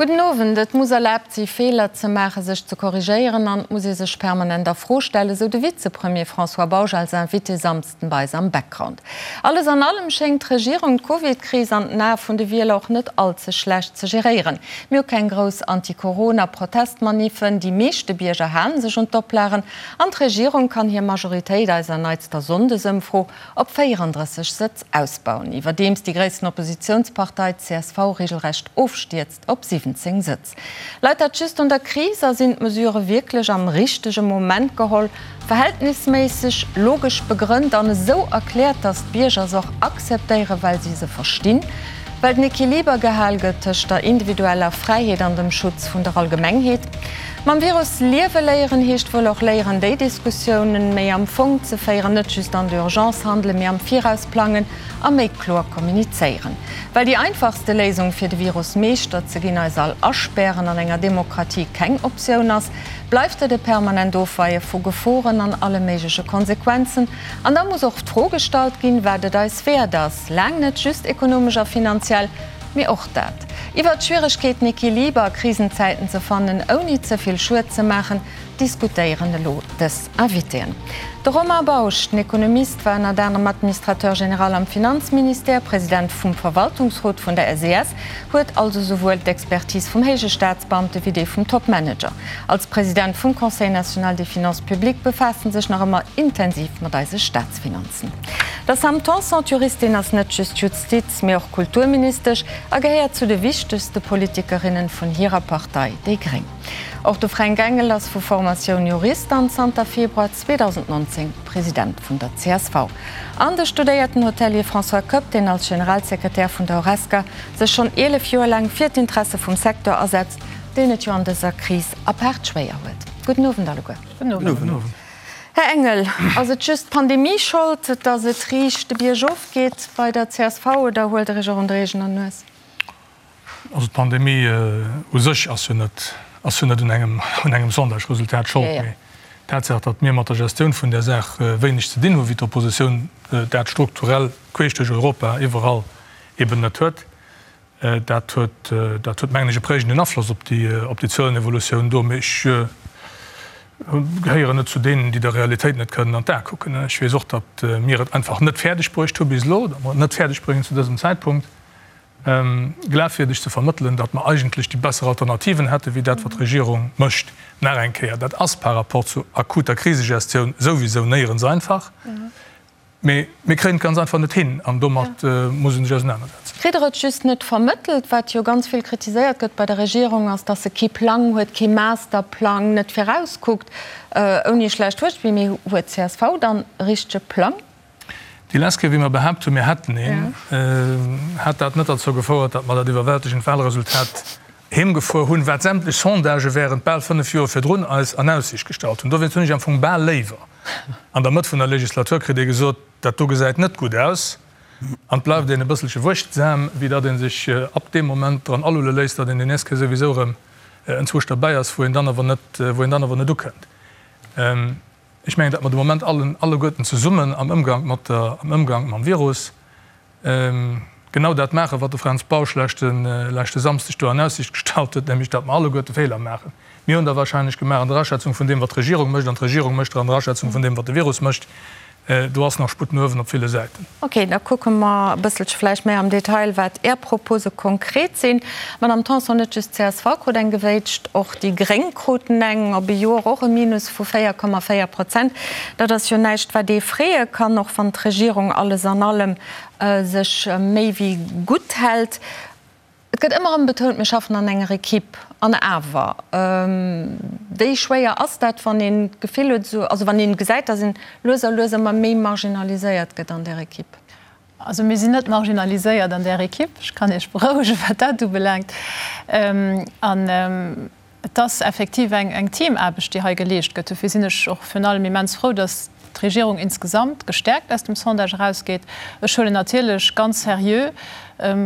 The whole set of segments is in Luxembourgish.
Gudden Owend. Et muss erlaabt si Feeler ze maachen, sech ze korrigéieren an et muss ee sech permanent a Fro stellen, esou de Vizepremier François Bausch als Invité Samsden bei eis am Background. Alles an allem schéngt d'Regierung d'Covid-Kris an den Ae vun de Wieler och net all ze schlecht ze geréieren. Mir hu keng grouss Anti-Corona-Protestmaniffen, déi meeschte Bierger halen sech un d'Oplagen an d'Regierung kann hir Majoritéit eiser neitster Sonndesëmfro op 34 Sëtz ausbauen, iwwerdeems déi gréissten Oppositiounspartei, csv, regelrecht ofstierzt op 17 Sëtz. Leit dat just un der Kris a sinn d'Mesurë wierklech am richtege Moment geholl, verhältnisméisseg, logesch begrënnt an esou erkläert, datt d'Bierger se och akzeptéieren, well si se verstinn? Well den Equiliber gehal gëtt tëscht der individueller Fräiheet an dem Schutz vun der Allgemengheet. Mam Virus liewe léieren heescht wuel och léieren, déi Diskussiounen méi am Fong ze féieren, net just an der Urgence handelen, mee am Viraus plangen a méi kloer kommunizéieren. Well déi einfachste Léisung fir de Virus Meeschter ze ginn, eis all aspären, an enger Demokratie keng Optioun ass, bleift et e permanent Ofweie vu Geforen an alle méigleche Konsequenzen. An da muss och d'Fro gestallt ginn, wat et eis wäert ass, laang net just ekonomesch a finanziell, mee och dat. Iwwert d'Schwieregkeeten, Equiliber a Krisenzäiten ze fannen, ouni ze vill Schued ze maachen, diskutéieren elo dës Invitéen. De Romain Bausch, den Ekonomist, war ënnert anerem Administrateur général am Finanzministère, President vum Verwaltungsrot vun der SES, huet also souwuel d'Expertise vum héije Staatsbeamte wéi déi vum Topmanager. Als President vum Conseil national des finances publiques befaasst en sech nach ëmmer intensiv mat eise Staatsfinanzen. Der Sam Tanson, d'Juristin, ass net just Justiz-, mee och Kulturministesch a gehéiert zu de wichtegste Politikerinnen vun hirer Partei, déi gréng. Och de Fränk Engel ass vu Formatioun Jurist an zanter Februar 2019 President vun der csv. An de studéierten Hotelier François Koepp, deen als Generalsekretär vun der Horesca sech schonn 11 Joer laang fir d'Interesse vum Secteur asetzt, deen et jo an dëser Kris apaart schwéier huet. Gudden Owend alleguer. Gudden Owend. Här Engel, ass et just d'Pandemie Schold, datt et riicht de Bierg of geet bei der csv oder huelt Der Iech och un der eegener Nues? Also d'Pandemie u sech ass jo net, ass jo net un engem, un engem Sondage-Resultat Schold, mee d'Tatsaach, datt mir mat der Gestioun vun där Saach wéineg ze dinn hunn, wéi d'Oppositioun dat strukturell queesch duerch Europa iwwerall eben net huet, Dat huet, dat huet mengen ech e prägenden Afloss op déi, op déi Zuelenevolutioun do. Mee ech gehéieren net zu deenen, déi der Realitéit net kënnen an d'Ae kucken. Ech weess och, datt mir et einfach net fäerdeg bruecht hu bis elo, datt mer et net fäerdeg bréngen zu dësem Zäitpunkt, glafwierdeg ze vermëttelen, datt mer eigentlech déi besser Alternativen hätte wéi dat, wat d'Regierung mécht. Nach eng Kéier, dat ass par rapport zu akuter Krisegestioun souwisou néierens einfach. Mee mir kréien et ganz einfach net hin an domat muss ee sech ausenanersetzen. Kritt Der et just net vermëttelt? Wat jo ganz vill kritiséiert gëtt bei der Regierung, ass, datt se kee Plang huet, kee Masterplang, net virauskuckt. Ouni e schlecht Wuert, mee huet csv dann e richtege Plang? Déi lescht Kéier, wéi mer behaapt hunn, mir hätten een, hat dat net derzou gefouert, datt mer dat iwwerwältegend Wahlresultat heemgefuer hunn, wat sämtlech Sondagë während bal 5 Joer virdrun eis an Aussiicht gestallt hunn. Dowéinst hunn ech am Fong bal léiwer, an der Mëtt vun der Legislatur kritt ee gesot, dat do gesäit net gutt aus, an et bleift een e bësselche wuechtsam, wéi datt ee sech ab deem Moment dran alulle léisst, datt een déi nächst Kéier souwisou erëm enzwousch derbäi ass, wou een dann awer net, wou een dann awer net ukënnt. Ech mengen, datt mer de Moment allen, alleguerten zesummen am Ëmgank mat der, am Ëmgank mam Virus, genau dat maachen, wat de Fränz Bausch leschte, leschte Samsdeg do an Aussicht gestallt huet, nämlech datt mer alleguerte Feeler maachen. Mir hunn der wahrscheinlech gemaach an der Aschätzung vun deem, wat d'Regierung mécht, an d'Regierung mécht der an der Aschätzung vun deem, wat de Virus mécht. Do ass nach Sputt no uewen op ville Säiten. Ok, da kucke mer e bësselche vläicht méi am Detail, wat Är Propose konkret sinn. Madamm Tanson, net just csv krut eng gewéitscht, och déi Gréng kruten eng, op e Joer och e Minus vu 4,4 Prozent. Dat ass jo näischt, wat ee freeë kann, och wann d'Regierung alles an allem sech méi wéi gutt hält. Et gëtt ëmmer erëm betount, mir schaffen an enger Equipe. An awer, wéi schwéier ass dat, wann een d'Gefill huet, esou, also wann een gesäit, datt een lues a lues ëmmer méi marginaliséiert gëtt an där Equipe? Also mir sinn net marginaliséiert an där Equipe, ech kann Iech berouegen, wat dat ubelaangt. An et ass effektiv eng Teamaarbecht, déi hei geleescht gëtt. Dofir sinn ech och virun allem immens frou, datt d'Regierung insgesamt gestäerkt aus dem Sondage erausgeet. Ech huelen natierlech ganz seriö.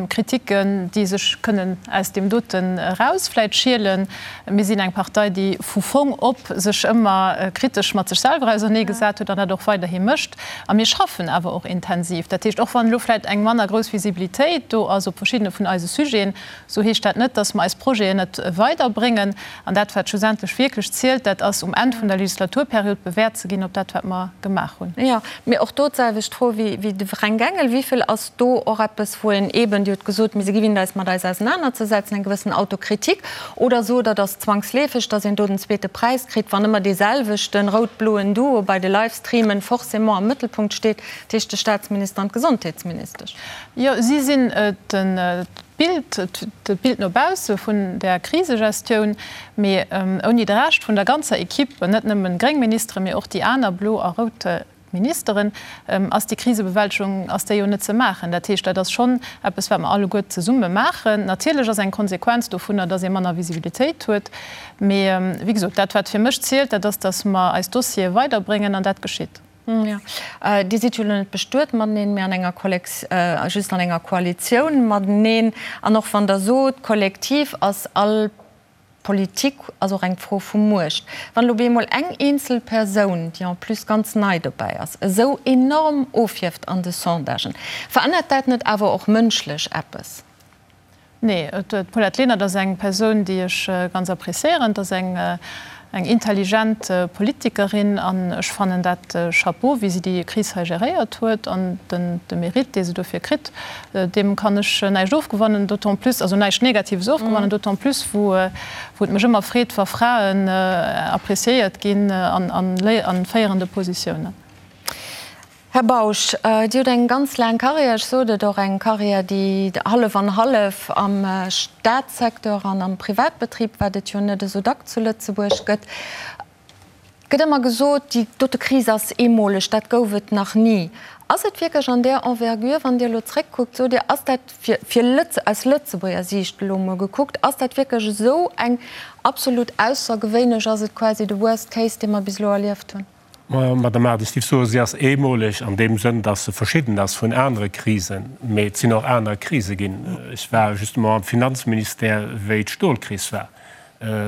Kritiken, déi sech kënnen aus deem doten eraus vläit schielen. Mir sinn eng Partei, déi vu Fong op sech ëmmer kritesch mat sech selwer auserneegesat huet an dat och weiderhi mécht. A mir schaffen awer och intensiv. Dat heescht, och wann elo vläit eng manner grouss Visibilitéit do ass op verschiddene vun eise Sujeten, esou heescht dat net, dass mer eis Projeten net weiderbréngen. An dat, wat schlussendlech wierklech zielt, dat ass um Enn vun der Legislaturperiod bewäert ze ginn op dat, wat mer gemaach hunn. Jo, mee och do d'selwecht Fro wéi de Fränk Engel, Wéi vill ass do och eppes, wou een eeben, Dir hutt gesot, mir si gewinnt eis mat eis ausenanerzesetzen, eng gewëssen Autokritik, oder sot Der, et ass zwangsleefeg, datt een do den zweete Präis kritt, wann ëmmer dee selwechten rout-bloen Duo bei de Livestreamen forcément am Mëttelpunkt steet, dat heescht de Staatsminister an d'Gesondheetsministesch? Jo, si sinn den D'Bild, d'Bild no bausse vun där Krisegestioun, mee ouni de Rescht vun der ganzer Equipe, net nëmmen gréng Ministeren, mee och déi aner blo a rout Ministeren, ass déi Krisebewältegung, ass déi jo net ze maachen. Dat heescht, dat ass schonn eppes, wat mer alleguer zesumme maachen. Natierlech ass eng Konsequenz dovunner, dass ee manner Visibilitéit huet, mee wéi gesot, dat wat fir mech zielt, dat ass, dass mer eis Dossiere weiderbréngen an dat geschitt. Jo, Dir sidd jo elo net bestuet mateneen, mee an enger Kollex, just an enger Koalitioun mateneen. An och wann Der sot, kollektiv ass all Politik ass och eng Fro vu Muecht. Wann elo bemol eng eenzel Persoun, déi en plus ganz nei dobäi ass, esou enorm ofhieft an de Sondagen, verännert dat net awer och mënschlech eppes? Nee, d'Paulette Lenert ass eng Persoun, déi ech ganz appréciéieren. Et ass eng intelligent Politikerin an ech fannen dat Chapeau, wéi si déi Kris hei geréiert huet an de Mérite, dee se dofir kritt, deem kann ech näischt ofgewannen, d'autant plus, also näischt Negatives ofgewannen, d'autant plus wou et mech ëmmer freet, wa Fraen appréciéiert ginn an féierende Positiounen. Här Bausch, Dir hutt eng ganz laang Carrière, ech sot et, och eng Carrière, déi hallef an hallef am Staatssecteur an am Privatbetrib, wat et jo net esou dack zu Lëtzebuerg gëtt. Et gëtt ëmmer gesot, déi dote Kris ass eemoleg, dat gouf et nach ni. Ass et wierklech an där Envergure, wann Dir elo zréckkuckt, sot Dir, ass dat fir, fir Lëtze, aus Lëtzebuerger Siicht elo emol gekuckt, ass dat wierklech esou eng absolut aussergewéinlech, ass et quasi de Worst Case, dee mer bis elo erlieft hunn? Madame Aart, ech géif soen, si ass eemoleg an deem Sënn, datt se verschidden ass vun anere Krisen. Mee et sinn och aner Krise ginn. Ech war justement am Finanzministère, wéi d'Stolkris war.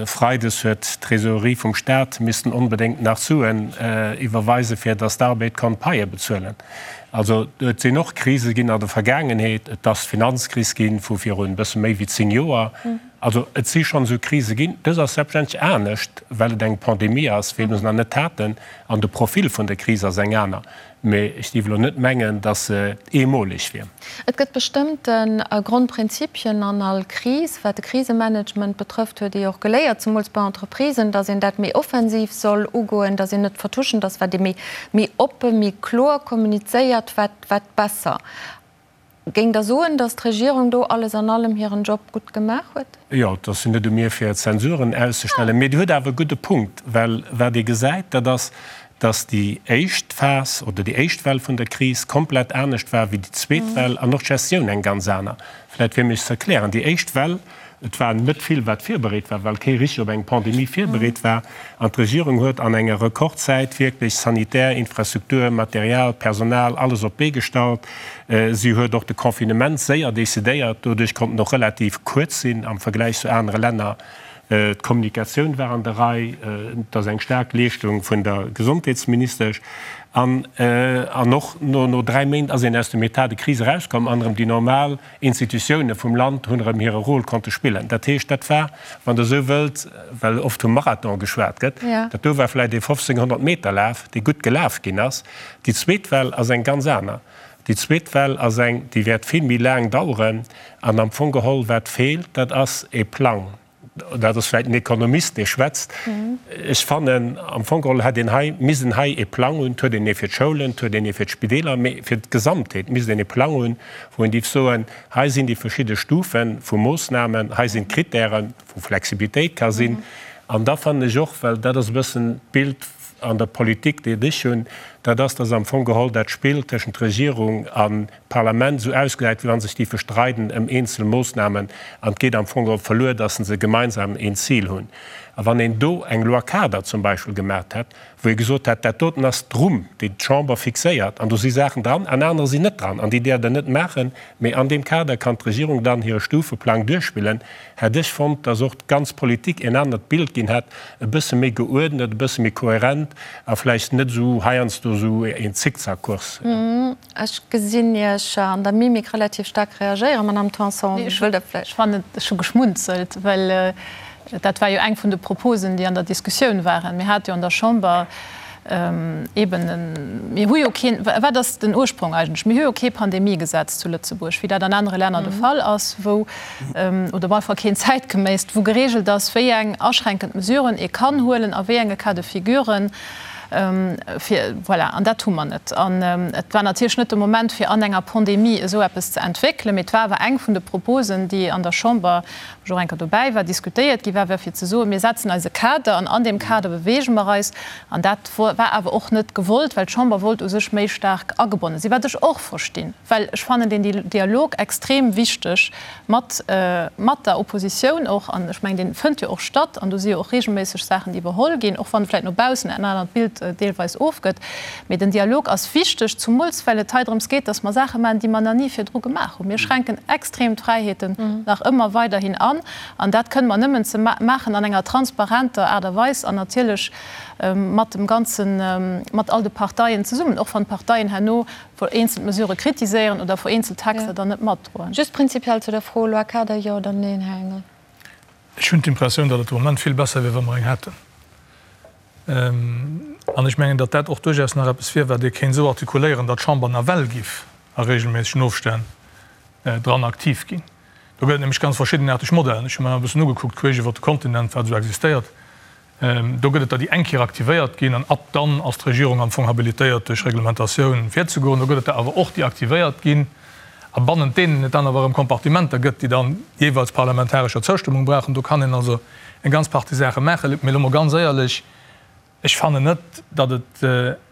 Freides huet d'Trésorerie vum Stat missten onbedéngt nach Suen iwwerweisen, fir datt d'Arbed konnt Paie bezuelen. Also et sinn och Krise ginn an der Vergaangenheet. Et ass d'Finanzkris gi vu virun e bësse méi wéi 10 Joer. Also et si schonn esou Krise ginn. Dës ass selbstverständlech anescht, well et eng Pandemie ass, wéi mir se nach net haten, an de Profil vun der Kris ass eng aner. Mee ech géif elo net mengen, datt se eemoleg wier. Et gëtt bestëmmte Grondprinzipien an all Kris. Wat de Krisemanagement betrëfft, huet ee jo och geléiert, zemools bei Entreprisen, datt een dat méi offensiv soll ugoen, datt een net vertuschend ass, wat ee méi oppe, méi kloer kommunizéiert, wat besser. Géingt Der soen, datt d'Regierung do alles an allem hiren Job gutt gemaach huet? Jo, et ass jo net u mir fir Zensuren auszestellen, mee Dir hutt awer e gudde Punkt, well wat ee gesäit, dat ass, datt déi éischt Phas oder déi éischt Well vun der Kris komplett anescht war wéi déi zweet Well an och d'Gestioun eng ganz aner. Vläicht fir mech ze erklären, Déi éischt Well, Et war net vill, wat virbereet war, well kee richteg op eng Pandemie virbereet war. An d'Regierung huet an enger Rekordzäit wierklech sanitär Infrastruktur, Material, Personal, alles op d'Bee gestallt. Si huet och de Confinement séier decidéiert. Doduerch konnt en och relativ kuerz sinn am Vergläich zu anere Länner. D'Kommunikatioun war an der Rei. Et ass eng staark Leeschtung vun der Gesondheetsministesch. An och no 3 Méint ass een aus dem État de crise erauskomm an erëm déi normal Institutioune vum Land hunn erëm hire Rôle konnte spillen. Dat heescht, dat war, wann Der esou wëllt, well oft vum Marathon geschwat gëtt, dat do war vläicht ee 1500 Meter Laf, dee gutt gelaf ginn ass. Déi zweet Well ass eng ganz aner. Déi zweet Well ass eng, déi wäert vill méi laang daueren. An am Fong geholl, wat feelt, dat ass e Plang. Dat ass vläicht en Ekonomist, dee schwätzt. Ech fannen, am Fong geholl hätt een hei missen hei ee Plang hunn. Et huet een ee fir d'Schoulen, et huet een ee fir d'Spideeler, mee fir d'Gesamtheet misst een ee Plang hunn, wou een dierf soen, hei sinn déi verschidde Stufe vu Moossnamen, hei sinn d'Kritären, wou Flexibilitéit ka sinn. An da fannen ech och, well dat ass e bëssen d'Bild an der Politik, déi ech hunn. Dat ass, dass am Fong geholl dat Spill tëschent Regierung a Parlament esou ausgesäit, wéi wa sech déi verstreiden ëm eenzel Moossnamen an et geet am Fong geholl verluer, dass se gemeinsam een Zil hunn. A wann een do eng Loi-cadre zum Beispill gemaacht hätt, wou ee gesot hätt, dat doten ass d'Rumm, déi d'Chamber fixéiert, an do si Saachen dran an anerer sinn net dran an déi däerft Der net maachen, mee an deem Kader kann d'Regierung dann hire Stufeplang duerchspillen, hätt ech fonnt, dass och d'ganz Politik een anert Bild ginn hätt, e bësse méi geuerdnet, e bësse méi kohärent a vläicht net esou heiansdo esou een Zickzackkurs. Ech gesinn Iech an der Mimik relativ staark reagéieren, Madamm Tanson. Wëllt Der vläicht. Ech fannen, ech hu geschmunzelt, well dat war jo eng vun de Proposen, déi an der Diskussioun waren. Mir hate jo an der Chamber eeben en, mir hu jo keen, wat ass den Ursprong eigentlech? Mir hu jo kee Pandemiegesetz zu Lëtzebuerg, wéi dat an anere Länner de Fall ass, wou, oder op alle Fall keen zäitgeméisst, wou geregelt ass, wéi eng aschränkend Mesuren ee kann huelen a wéi enge Cas de figuren. Fir, voilà, an dat hu mer net. An et war natierlech net de Moment, fir an enger Pandemie esou eppes ze entwéckelen, mee et war awer eng vun de Proposen, déi an der Chamber, wou ech och eng Kéier dobäi war, diskutéiert gi war, war fir ze soen, Mir setzen eis e Kader an an deem Kader beweege mer eis. An dat war awer och net gewollt, well d'Chamber wollt u sech méi staark agebonne sinn, wat ech och verstinn, well ech fannen deen Dialog extrem wichteg mat mat der Oppositioun och, an ech mengen, dee fënnt jo och statt, an do si jo och regelméisseg Saachen, déi iwwerholl ginn, och wann vläicht no baussen en anert Bild deelweis ofgëtt. Mee den Dialog ass wichteg, zumools well et hei drëms geet, dass mer Saache maachen, déi mer nach ni virdru gemaach hunn. Mir schränken extrem d'Fräiheeten nach ëmmer weiderhin an, an dat kënne mer nëmmen ze maachen an enger transparenter Aart a Weis an natierlech mat dem ganzen, mat all de Parteien zesummen, och wann d'Parteien herno vereenzelt Mesurë kritiséieren oder vereenzelt Texter dann net matdroen. Just prinzipiell zu der Fro, Loi cadre, jo oder neen, Här Engel? Ech hunn d'Impressioun, datt et de Moment vill besser wier, wa mer eng hätten. An ech mengen, datt dat och duerchaus nach eppes wier, wat ee kéint esou artikuléieren, datt d'Chamber nawell giff a regelméissegen Ofstänn dran aktiv ginn. Do gëtt et nämlech ganz verschiddenaarteg Modellen. Ech hu mer e bëssen ugekuckt, queesch iwwert de Kontinent, wat esou existéiert. Do gëtt et der, déi eng Kéier aktivéiert ginn an ab dann ass d'Regierung am Fong habilitéiert, duerch Reglementatioun virzegoen. Do gëtt et der awer och, déi aktivéiert ginn a bannent deenen et dann awer erëm Kompartimenter gëtt, déi dann jeeweils parlamentarescher Zoustëmmung brauchen. Do kann een also eng ganz Partie Saache maachen. Mee elo mol ganz éierlech, Ech fannen net, datt et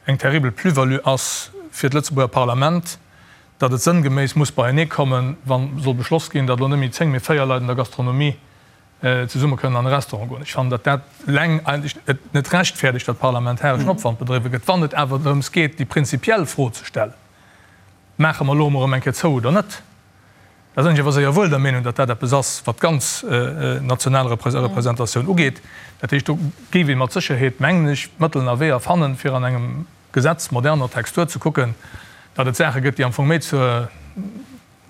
eng terribel Plus-value ass fir d'Lëtzebuerger Parlament, datt et sënngeméiss muss beieneekommen, wa soll beschloss ginn, datt elo net méi 10, mee 4 Leit an der Gastronomie zesumme kënnen an e Restaurant goen. Ech fannen, datt dat eleng eigentlech et net rechtfäerdegt, datt parlamentareschen Opwand bedriwwe gëtt. Wann et awer drëms geet, déi prinzipiell Fro ze stellen, Maache mer elo emol erëm eng Kéier zou oder net? Da sinn ech awer séier wuel der Meenung, datt dat eppes ass, wat d'ganz national Representatioun ugeet. Dat heescht, do géif ee mat Sécherheet, mengen ech, Mëtteln a Weeër fannen, fir an engem Gesetz moderner Textur ze kucken, datt et Saache gëtt, déi am Fong méi zur,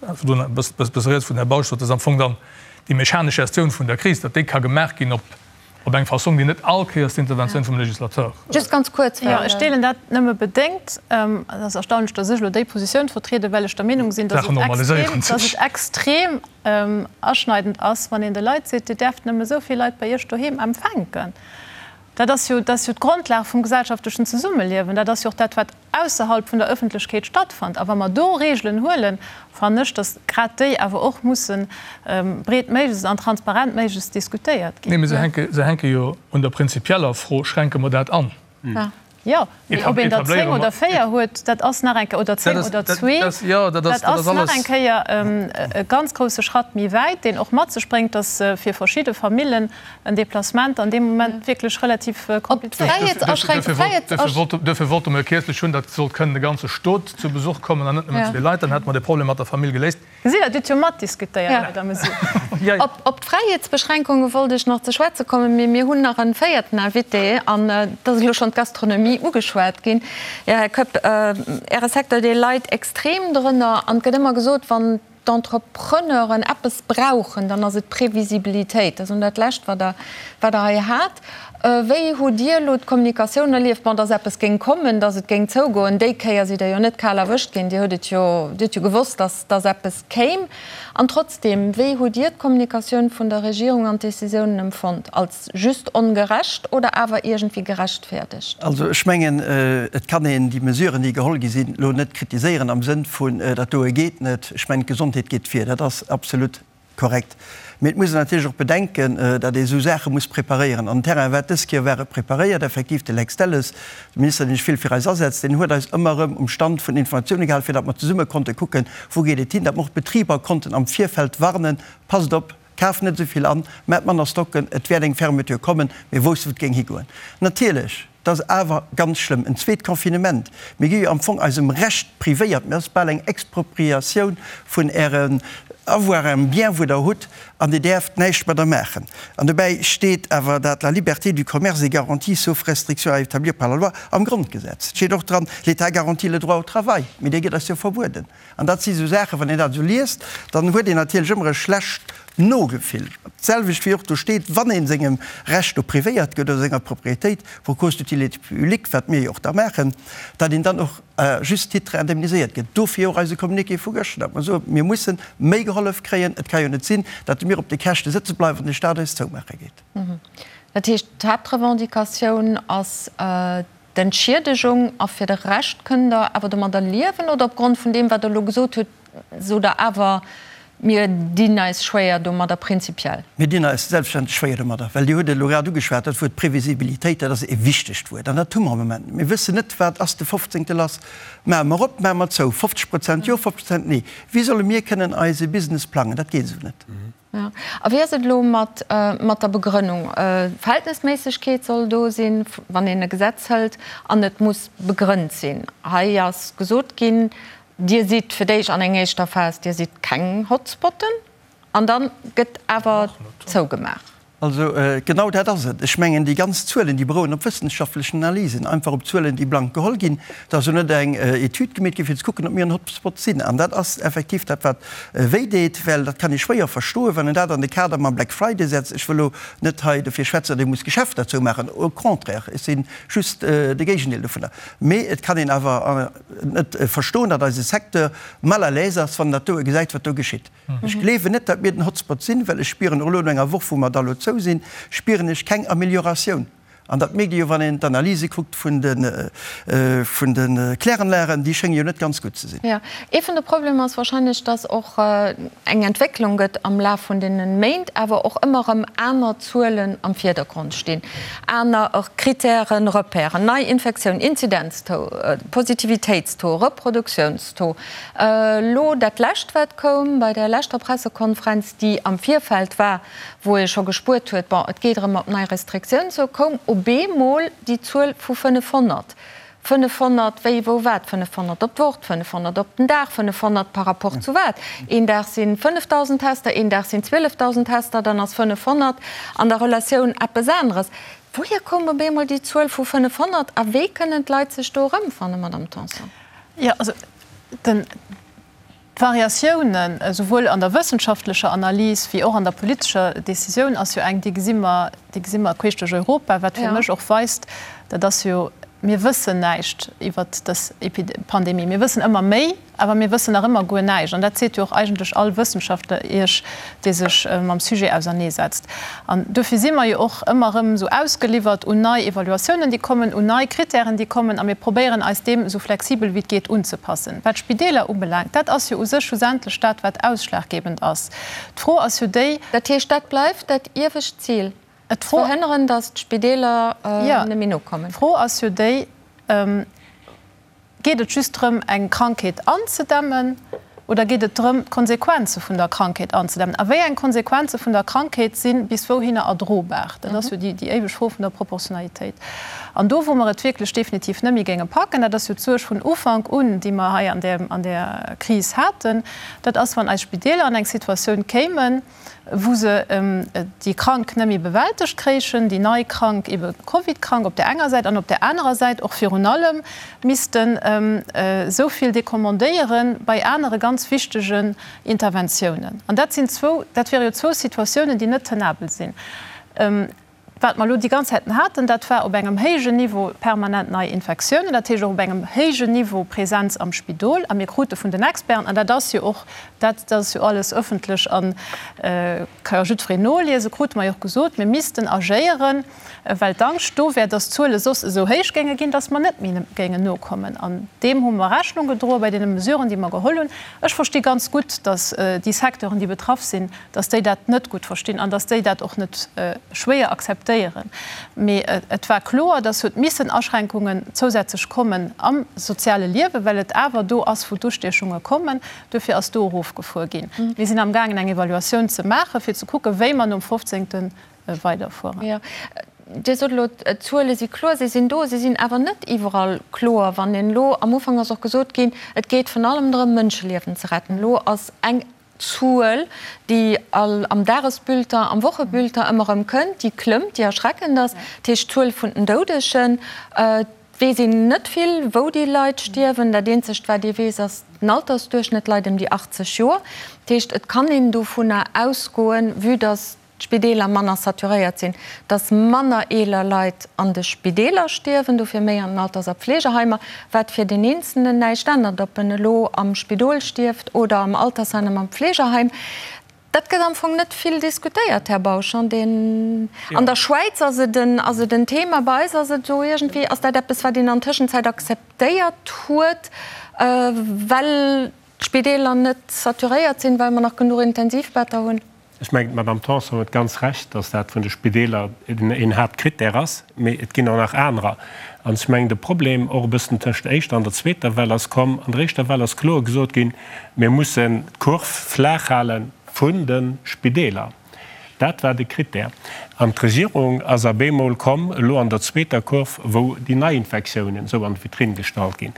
Virdrun e bësse riets vun Här Bausch sot, dass am Fong dann déi mechanesch Gestioun vun der Kris, datt déi ka gemaach ginn op eng Fassong, déi net all Kéiers d'Interventioun vum Législateur. Just ganz kuerz, well. Jo, ech deelen dat nëmme bedéngt. Et ass erstaunlech, dass ech elo déi Positioun vertrieden, well ech der Meenung sinn, dass et extrem aschneidend ass, wann een de Leit seet, Dir däerft nëmme esou vill Leit bei Iech doheem empfänken. Dat ass jo, dat ass jo d'Grondlag vum gesellschaftlechen Zesummeliewen. Dat ass jo och dat, wat ausserhalb vun der Ëffentlechkeet stattfënnt. A wa mer do Regeln huelen, fannen ech, datt grad déi awer och musse breetméiglechst an transparentméiglechst diskutéiert ginn. Nee, mee se hänke, se hänke jo un der prinzipieller Fro, Schränke mer dat an? Jo, mee ob een der 10 oder 4 huet, dat ass nach eng Kéier, oder 10 oder zwee, dat ass nach eng Kéier e ganz grousse Schratt méi wäit, deen och mat sech bréngt, datt fir verschidde Famillen en Déplacement an deem Moment wierklech relativ komplizéiert ass. Duerfir wollte mer jo kierzlech hunn, datt sollt kënnen de ganze Stot zu Besuch kommen an net nëmmen zwee Leit. Dann hätte mer de Problem mat der Famill geléist. Gesitt Der, Dir hutt jo matdiskutéiert bei der Mesure. Op d'Fräiheetsbeschränkunge wollt ech nach ze schwätze kommen, mee mir hunn nach e véierten Invité an et ass elo schonn d'Gastronomie ugeschwat ginn. Jo, Här Koepp, Äre Secteur, dee leit extrem drënner an et gëtt ëmmer gesot, wann d'Entrepreneuren eppes brauchen, dann ass et Previsibilitéit. Dat ass dat Lescht, wat Der, wat Der hei hat. Wéi hutt Dir elo d'Kommunikatioun erlieft? Bon, dass eppes géing kommen, dass et géing zougoen, déi Kéier sidd Der jo net kal erwëscht ginn. Dir hutt et jo, Dir hutt jo gewosst, dass, dass eppes kéim. An trotzdem, wéi hutt Dir d'Kommunikatioun vun der Regierung an d'Décisiounen empfonnt? Als just ongerecht oder awer iergendwéi gerechtfäerdegt? Also ech mengen, et kann een déi Mesuren, déi geholl gi sinn, elo net kritiséieren am Sënn vun, dat doe geet net. Ech mengen, d'Gesondheet geet vir. Dat ass absolut. korrekt. Mee et muss een natierlech och bedenken, datt ee esou Saache muss preparéieren. An den Terrain war dës Kéier war e preparéiert. Effektiv, de Lex Delles, de Minister, deen sech vill fir eis asetzt, deen huet eis ëmmer erëm um Stand vun Informatioune gehalen, fir datt mer zesumme konnte kucken, wou geet et hin, datt mer och d'Betriber konnten am Virfeld warnen, Passt op, kaaft net esou vill an, maacht manner Stocken, et wäert eng Fermeture kommen. Mir woussten, wou et géing higoen. Natierlech, et ass awer ganz schlëmm, en zweet Confinement. Mir gi jo am Fong eisem Recht privéiert. Mir ass bal eng Expropriatioun vun Ären Avoiren, Ärem Bien, wou Der hutt, an Dir däerft näischt mat der maachen. An dobäi steet awer dat la liberté du commerce est garantie sauf restrictions à établir par la loi am Grondgesetz. Et steet och dran, l'État garantit le droit au travail. Mee dee gëtt eis jo verbueden. An dat si sou Saachen, wann een dat esou liest, dann huet een natierlech ëmmer e schlecht Nogefill. D'selwecht wéi och do steet, wann ee sengem Recht do privéiert gëtt oder senger Propriétéit pour cause d'utilité publique, wat mir jo och da maachen, datt een dann och à juste titre indemniséiert gëtt. Dofir och eise Communiqué vu gëschter, datt mer soen, mir musse méi gehollef kréien. Et ka jo net sinn, datt mir op de Käschte sëtze bleiwen an de Stat eis zoumaache geet. Dat heescht, d'Haaptrevendicatioun ass D'Entschiedegung, a fir de Rescht kënnt Der awer domadder liewen, oder opgrond vun deem, wat Der elo gesot hutt, sot Der awer, mir dinn eis schwéier domadder prinzipiell? Mir dinn eis selbstverständlech schwéier domadder, well Dir hutt et elo grad ugeschwat, dat Wuert Previsibilitéit, dat ass e wichtegt Wuert an dat hu mer am Moment net. Mir wëssen net, wat ass de 15. lass. Maache mer op, maache mer zou, 50 Prozent jo, 50 Prozent nee. Wéi solle mir kënnen eise Business plangen? Dat geet esou net. A wéi ass et elo mat der Begrënnung? Verhältnesméissegkeet soll do sinn, wann een e Gesetz hëlt, an et muss begrënnt sinn. Hei ass gesot ginn, Dir sidd fir d'éischt an eng éischter Phas, Dir sidd keng Hotspotten, an da gëtt awer zougemaach. Also genau dat ass et. Ech mengen, déi ganz Zuelen, déi berouen op wëssenschaftlechen Analysen, einfach op Zuelen, déi blank geholl ginn. Et ass jo net eng Etüd gemeet ginn, fir ze kucken, ob mir en Hotspot sinn. An dat ass effektiv dat, wat wéideet, well dat kann ee schwéier verstoen, wann een dat an de Kader mam Black Friday setzt. Ech wëll elo net hei dofir schwätzen, datt ee muss Geschäfter zoumaachen, au contraire, ech si just de Géigendeel dovunner. Mee et kann een awer net verstoen, datt eise Secteur mal à l'aise ass, wann en dat doe gesäit, wat do geschitt. Ech gleewen net, datt mir den Hotspot sinn, well ech spieren och elo no enger Woch, wou mer da lo zou sinn, spieren ech keng Amelioratioun. An dat mierkt ee jo, wann een d'Analyse kuckt vun de, vun de Kläranlagen, déi schénge jo net ganz gutt ze sinn. Jo, ee vun de Problemer ass wahrscheinlech, datt och eng Entwécklung gëtt am Laf vun deene Méint, awer och ëmmer erëm aner Zuelen am Virdergrond stinn, aner Kritären, Repèren, nei Infektioun, Inzidenztaux, Positivitéitstaux, Reproduktionstaux. Elo dat Lescht, wat koum bei där leschter Pressekonferenz, déi am Virfeld war, wou ee scho gespuert huet, bon, et geet erëm op nei Restriktiounen zou, koum op eemol déi Zuel vu 500. 500 wéi, wou, wat? 500 op d'Woch, 500 op den Dag, 500 par rapport zu wat? Een Dag si 5.000 Tester, een Dag sinn 12.000 Tester, dann ass 500 an der Relatioun eppes aneres. Wouhier koum op eemol déi Zuel vu 500 a wéi kënnen d'Leit sech do erëmfannen, Madamm Tanson? Jo, also den, d'Variatiounen, esouwuel an der wëssenschaftlecher Analys wéi och an der politescher Décisioun ass jo eng, déi gesi mer, déi gesi mer queesch duerch Europa, wat fir mech och weist, dat ass jo, mir wëssen näischt iwwert dës Pandemie. Mir wëssen ëmmer méi, awer mir wëssen nach ëmmer guer näischt. An dat seet jo och eigentlech all Wëssenschaftler Iech, dee sech mam Sujet auserneesetzt. An dofir si mer jo och ëmmer erëm esou ausgeliwwert un nei Evaluatiounen, déi kommen, un nei Kritären, déi kommen, a mir probéieren eis deem esou flexibel wéi et geet unzepassen. Wat d'Spideeler ubelaangt, dat ass jo u sech schlussendlech dat, wat ausschlaggebend ass. D'Fro ass jo déi. Dat heescht, dat bleift dat iewescht Zil, ze verhënneren, datt d'Spideeler net méi nokommen? D'Fro ass jo déi, Geet et just drëm, eng Krankheet anzedämmen oder geet et drëm, d'Konsequenze vun der Krankheet anzedämmen? A wéi eng Konsequenze vun der Krankheet si bis wouhinner erdrobar? Dat ass jo déi éiweg Fro vun der Proportionalitéit. An do, wou mer et wierklech definitiv net méi géinge packen, dat ass jo d'Suerg vun Ufank un, déi mer hei an där Kris haten, dat ass, wann eis Spideeler an eng Situatioun kéimen, wou se déi Krank net méi bewältegt kréichen, déi nei Krank, ebe Covid-Krank op där enger Säit an op där anerer Säit och virun allem missten esou vill decommandéiere bei anere ganz wichtegen Interventiounen. An dat sinn zwou, dat wiere jo zwou Situatiounen, déi net tenabel sinn. Wat mer elo déi ganz Zäiten haten, dat war op engem héijen Niveau permanent nei Infektiounen, dat heescht och op engem héijen Niveau Presenz am Spidol. A mir krute vun den Experten, an dat ass jo och, dat ass jo alles öffentlech a ka jo jiddwereen noliesen, krute mer jo och gesot, mir missten agéieren, well d'Angscht do wär, dass d'Zuele soss esou héich géinge ginn, dass mer net méi géingen nokommen. An deem hu mer Rechnung gedroe bei deene Mesuren, déi mer geholl hunn. Ech versti ganz gutt, dass déi Secteuren, déi betraff sinn, dass déi dat net gutt verstinn an dass déi dat och net schwéier akzeptéieren. Mee et war kloer, dass huet missen Aschränkungen zousätzlech kommen am soziale Liewen, well et awer do ass, wou d'Ustiechunge kommen. Duerfir ass do erofgefuer ginn. Mir sinn amgaangen, eng Evaluatioun ze maachen, fir ze kucken, wéi mer nom 15. Weiderfueren. Dir sot elo, d'Zuele si kloer, si sinn do, si sinn awer net iwwerall kloer. Wann een elo, am Ufank ass och gesot ginn, et geet virun allem drëm, Mënscheliewen ze retten. Elo ass eng Zuel, déi all am Dagesbulletin, am Wochebulletin ëmmer erëm kënnt, déi klëmmt, déi erschreckend ass, dat heescht d'Zuel vun den Doudegen. Et weess een net vill, wou déi Leit stierwen. Dat eenzegt, wat ee weess, ass den Altersduerchschnëtt leit ëm déi 80 Joer. Dat heescht, et kann een dovunner ausgoen, vue dass d'Spideeler manner saturéiert sinn, dass manner eeler Leit an de Spideeler stierwen, dofir méi an den Alters a Pflegeheimer, wat fir den Eenzelnen näischt ännert, ob en elo am Spidol stierft oder am Altersheim, am Pflegeheim. Dat gëtt am Fong net vill diskutéiert, Här Bausch. An der Schwäiz ass et en, ass et en Thema, bei eis ass et esou iergendwéi, ass dat eppes, wat een an Tëschenzäit akzeptéiert huet, well d'Spideeler net saturéiert sinn, well mer nach genuch Intensivbetter hunn. Ech mengen, d'Madame Tanson huet ganz Recht, dass dat vun de Spideeler een Haaptkrittär ass, mee et ginn och nach anerer. An ech mengen, de Problem och e bëssen tëscht der éischter an der zweeter Well ass komm, An der éischter Well ass kloer gesot ginn, Mir mussen d'Kurv flaach hale vun de Spideeler. Dat war de Krittär. An d'Regierung ass a bemol komm, elo an der zweeter Kurv, wou déi Neiinfektiounen esou an d'Vitrinn gestallt ginn.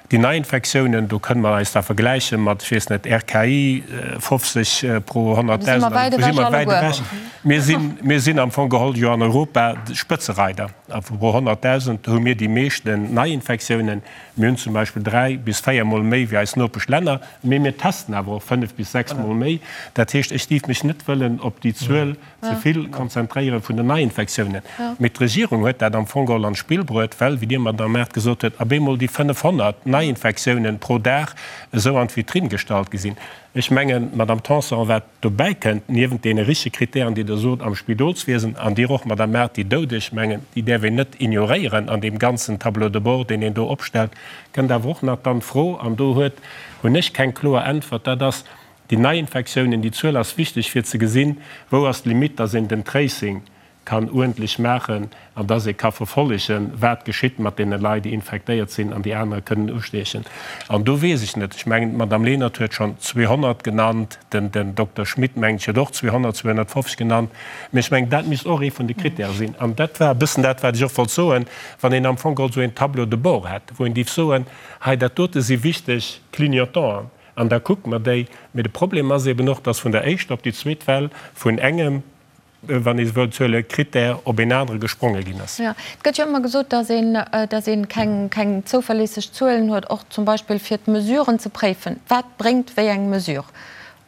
Déi Neiinfektiounen, do kënne mer eis da vergläiche mat, ech weess net, RKI, 50 pro 100.000, also do si mer wäit ewech. Mir sinn, mir sinn am Fong geholl jo an Europa Spëtzereider. A pro 100.000 hu mir déi meeschten Neiinfektiounen. Mir hunn zum Beispill dräi bis véiermol méi wéi eis Nopeschlänner, mee mir testen awer och fënnef bis sechsmol méi. Dat heescht, ech dierf mech net wëllen op déi Zuel ze vill konzentréiere vun den Neiinfektiounen. Mee d'Regierung huet dat am Fong geholl an d'Spill bruet, well, wéi Dir, Madamm Mart, gesot huet, ab eemol déi 500 Neiinfektiounen pro Dag esou an d'Vitrinn gestallt gi sinn. Ech mengen, Madamm Tanson, wat dobäi kënnt, niewent deene richtege Kritären, déi Der sot am Spidolswiesen, an Dir och, Madamm Mart, déi Doudeg, mengen, déi däerf een net ignoréieren an deem ganzen Tableau de bord, deen een do opstellt, kënnt awer och nach dann d'Fro, an do huet, hunn ech keng kloer Äntwert, dat ass, Déi Neiinfektiounen, déi Zuel ass wichteg fir ze gesinn, wou ass d'Limitt, dass een den Tracing kann uerdentlech maachen an dass ee ka verfollegen, wat geschitt mat deene Leit, déi infektéiert sinn an déi anerer kënnen ustiechen. An do weess ech net, ech mengen, d'Madame Lenert huet schonn 200 genannt, den Dokter Schmit, mengen ech, huet och 200, 250 genannt, mä ech mengen, dat misst och ee vun de Krittäre sinn. An dat war e bëssen dat, wat ech och wollt soen, wann een am Fong geholl esou een Tableau de bord hätt, wou een géif soen, hei dat dote si wichteg Clignotanten, An da kucke mer déi. Mee de Problem ass eben och, dass vun der éischter op déi zweet Well vun engem, wann ee se wëllt huelen, Critère op een anere gespronge ginn ass. Jo, et gëtt jo ëmmer gesot, dass een, dass ee keng, keng zouverléisseg Zuelen huet, och zum Beispill fir d'Mesuren ze préifen. Wat bréngt wéi eng Mesure?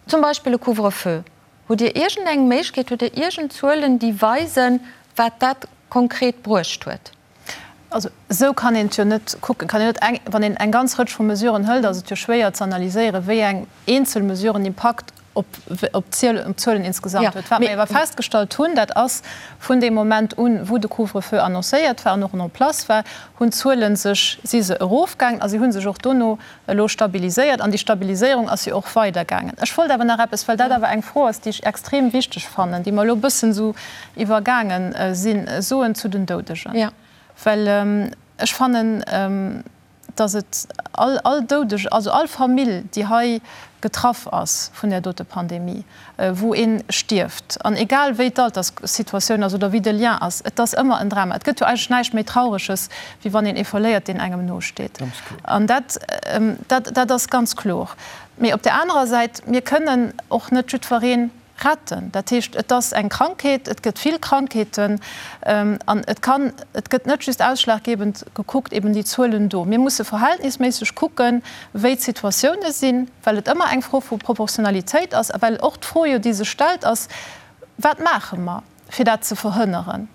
Zum Beispill e Couvre-feu. Hutt Dir iergendeng Méiglechkeet, hutt Dir iergend Zuelen, déi weisen, wat dat konkret bruecht huet? Also esou kann een et jo net kucken. Kann een net eng, wann een eng ganz Rëtsch vu Mesuren hëlt, ass et jo schwéier ze analyséieren, wéi eng eenzel Mesure en Impakt op op d'Zuelen insgesamt huet. Wat mer awer festgestallt hunn, dat ass, vun deem Moment un, wou de Couvre-feu annoncéiert war an och en place war, hunn d'Zuele sech, si se erofgaangen a si hu sech och dono elo stabiliséiert an déi Stabiliséierung ass jo och weidergaangen. Ech wollt awer nach eppes, well dat awer eng Fro ass, déi ech extrem wichteg fannen, déi mer elo e bëssen esou iwwergaange sinn, soen zu den Doudegen. Well ech fannen, dass et all, all Doudeg, also all Famill, déi hei getraff ass vun där dote Pandemie, wou ee stierft, an egal wéi d'Alterssituatioun ass oder wéi de Lien ass, et ass ëmmer en Drama. Et gëtt jo eigentlech näischt méi Traureges, wéi wann een ee verléiert, deen engem nosteet. An dat, dat, dat ass ganz kloer. Mee op där anerer Säit, mir kënnen och net jiddweree retten. Dat heescht, et ass eng Krankheet, et gëtt vill Krankheeten an et kann, et gëtt net just ausschlaggebend gekuckt eben déi Zuelen do. Mir musse verhältnisméisseg kucken, wéi d'Situatioune sinn, well et ëmmer eng Fro vu Proportionalitéit ass a well och d'Fro jo, déi sech stellt, ass, Wat maache mer, fir dat ze verhënneren?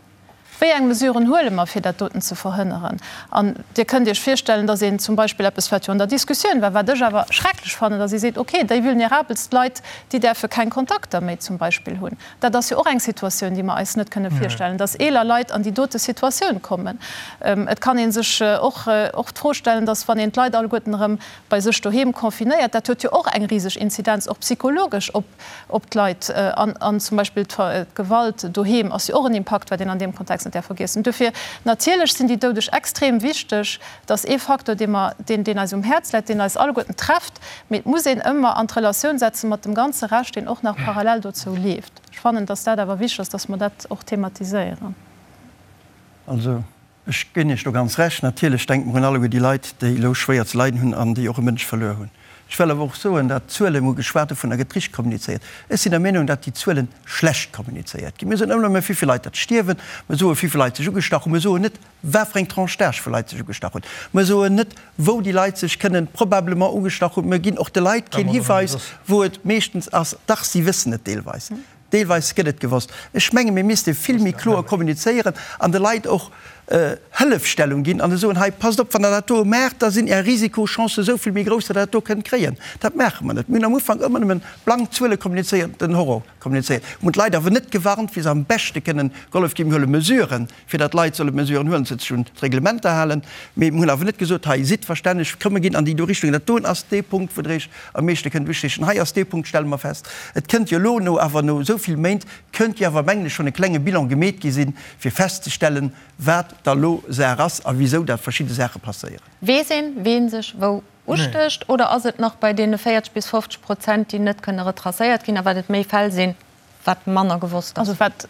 Wéi eng Mesuren huele mer, fir dat doten ze verhënneren? An Dir kënnt Iech virstellen, dass een zum Beispill eppes, wat jo an der Diskussioun war, wat ech awer schrecklech fannen, dass ee seet, okay, déi vulnerabelst Leit, déi däerfe keng Kontakter méi zum Beispill hunn. Dat ass jo och eng Situatioun, déi mer eis net kënne virstellen, dass eeler Leit an déi dote Situatioun kommen. Et kann ee sech och och d'Fro stellen, dass, wann een d'Leit alleguerten erëm bei sech doheem confinéiert, dat huet jo och eng riseg Inzidenz, och psychologesch, op op d'Leit. An zum Beispill d'Gewalt doheem ass jo och en Impakt, wat een an deem Kontext net däerf vergiessen. Dofir, natierlech sinn déi Doudeg extrem wichteg. Dat ass ee Facteur, dee mer, deen, deen eis um Häerz läit, deen eis alleguerten trefft. Mee et muss een ëmmer an d'Relatioun setze mat dem ganze Rescht, deen och nach parallel dozou leeft. Ech fannen, dass dat awer wichteg ass, dass mer dat och thematiséieren. Also, ech ginn Iech do ganz Recht. Natierlech denke mer un alleguer déi Leit, déi elo schwéier ze leiden hunn an déi och e Mënsch verluer hunn. Ech wëll awer och soen, dat d'Zuelen, mir hu geschwat dovun, da gëtt richteg kommunizéiert. Ech sinn der Meenung, dat déi Zuelen schlecht kommunizéiert ginn. Mir soen ëmmer nëmme, wéivill Leit dat stierwen, mir soen, wéivill Leit sech ugestach hunn, mir soen net, wat fir eng Tranche d'âge vu Leit sech ugestach hunn, mir soen net, wou déi Leit sech kënnen probablement ugestach hunn. Mir ginn och de Leit keen Hiweis, wou et meeschtens ass. Dach, si wëssen et deelweis. Deelweis gëtt et gewosst. Ech menge mir misste vill méi kloer kommunizéieren an de Leit och Hëllefstellung ginn an soen, hei passt op, wann Der dat do maacht, da sinn Är Risikochancen esou vill méi grouss, datt Der dat do kënnt kréien. Dat maache mer net. Mir hunn am Ufank ëmmer nëmmen blank Zuele kommunizéiert, den Horror kommunizéiert. Mir hunn d'Leit awer net gewarnt, wéi se am beschte kënnen gehollef ginn. Mir huele Mesuren, fir datt d'Leit solle Mesuren huelen, sech un d'Reglementer halen. Mee mir hunn awer net gesot, hei sidd verstänneg, komm mir ginn an déi do Richtung. Dat doen ass dee Punkt, wou Der Iech am meeschte kënnt usteechen. Hei ass dee Punkt, stelle mer fest, et kënnt jo elo no awer no esou vill Méint, kënnt jo awer, mengen ech, schonn e klenge Bilan gemeet gi sinn, fir festzestellen, wat da lo Saach ass a wisou dat verschidde Saache passéieren. Weess een, ween sech wou ustécht, oder ass et nach bei deene 40 bis 50 Prozent, déi net kënne retracéiert ginn, a wat et méi Fäll sinn, wat manner gewosst ass. Also wat,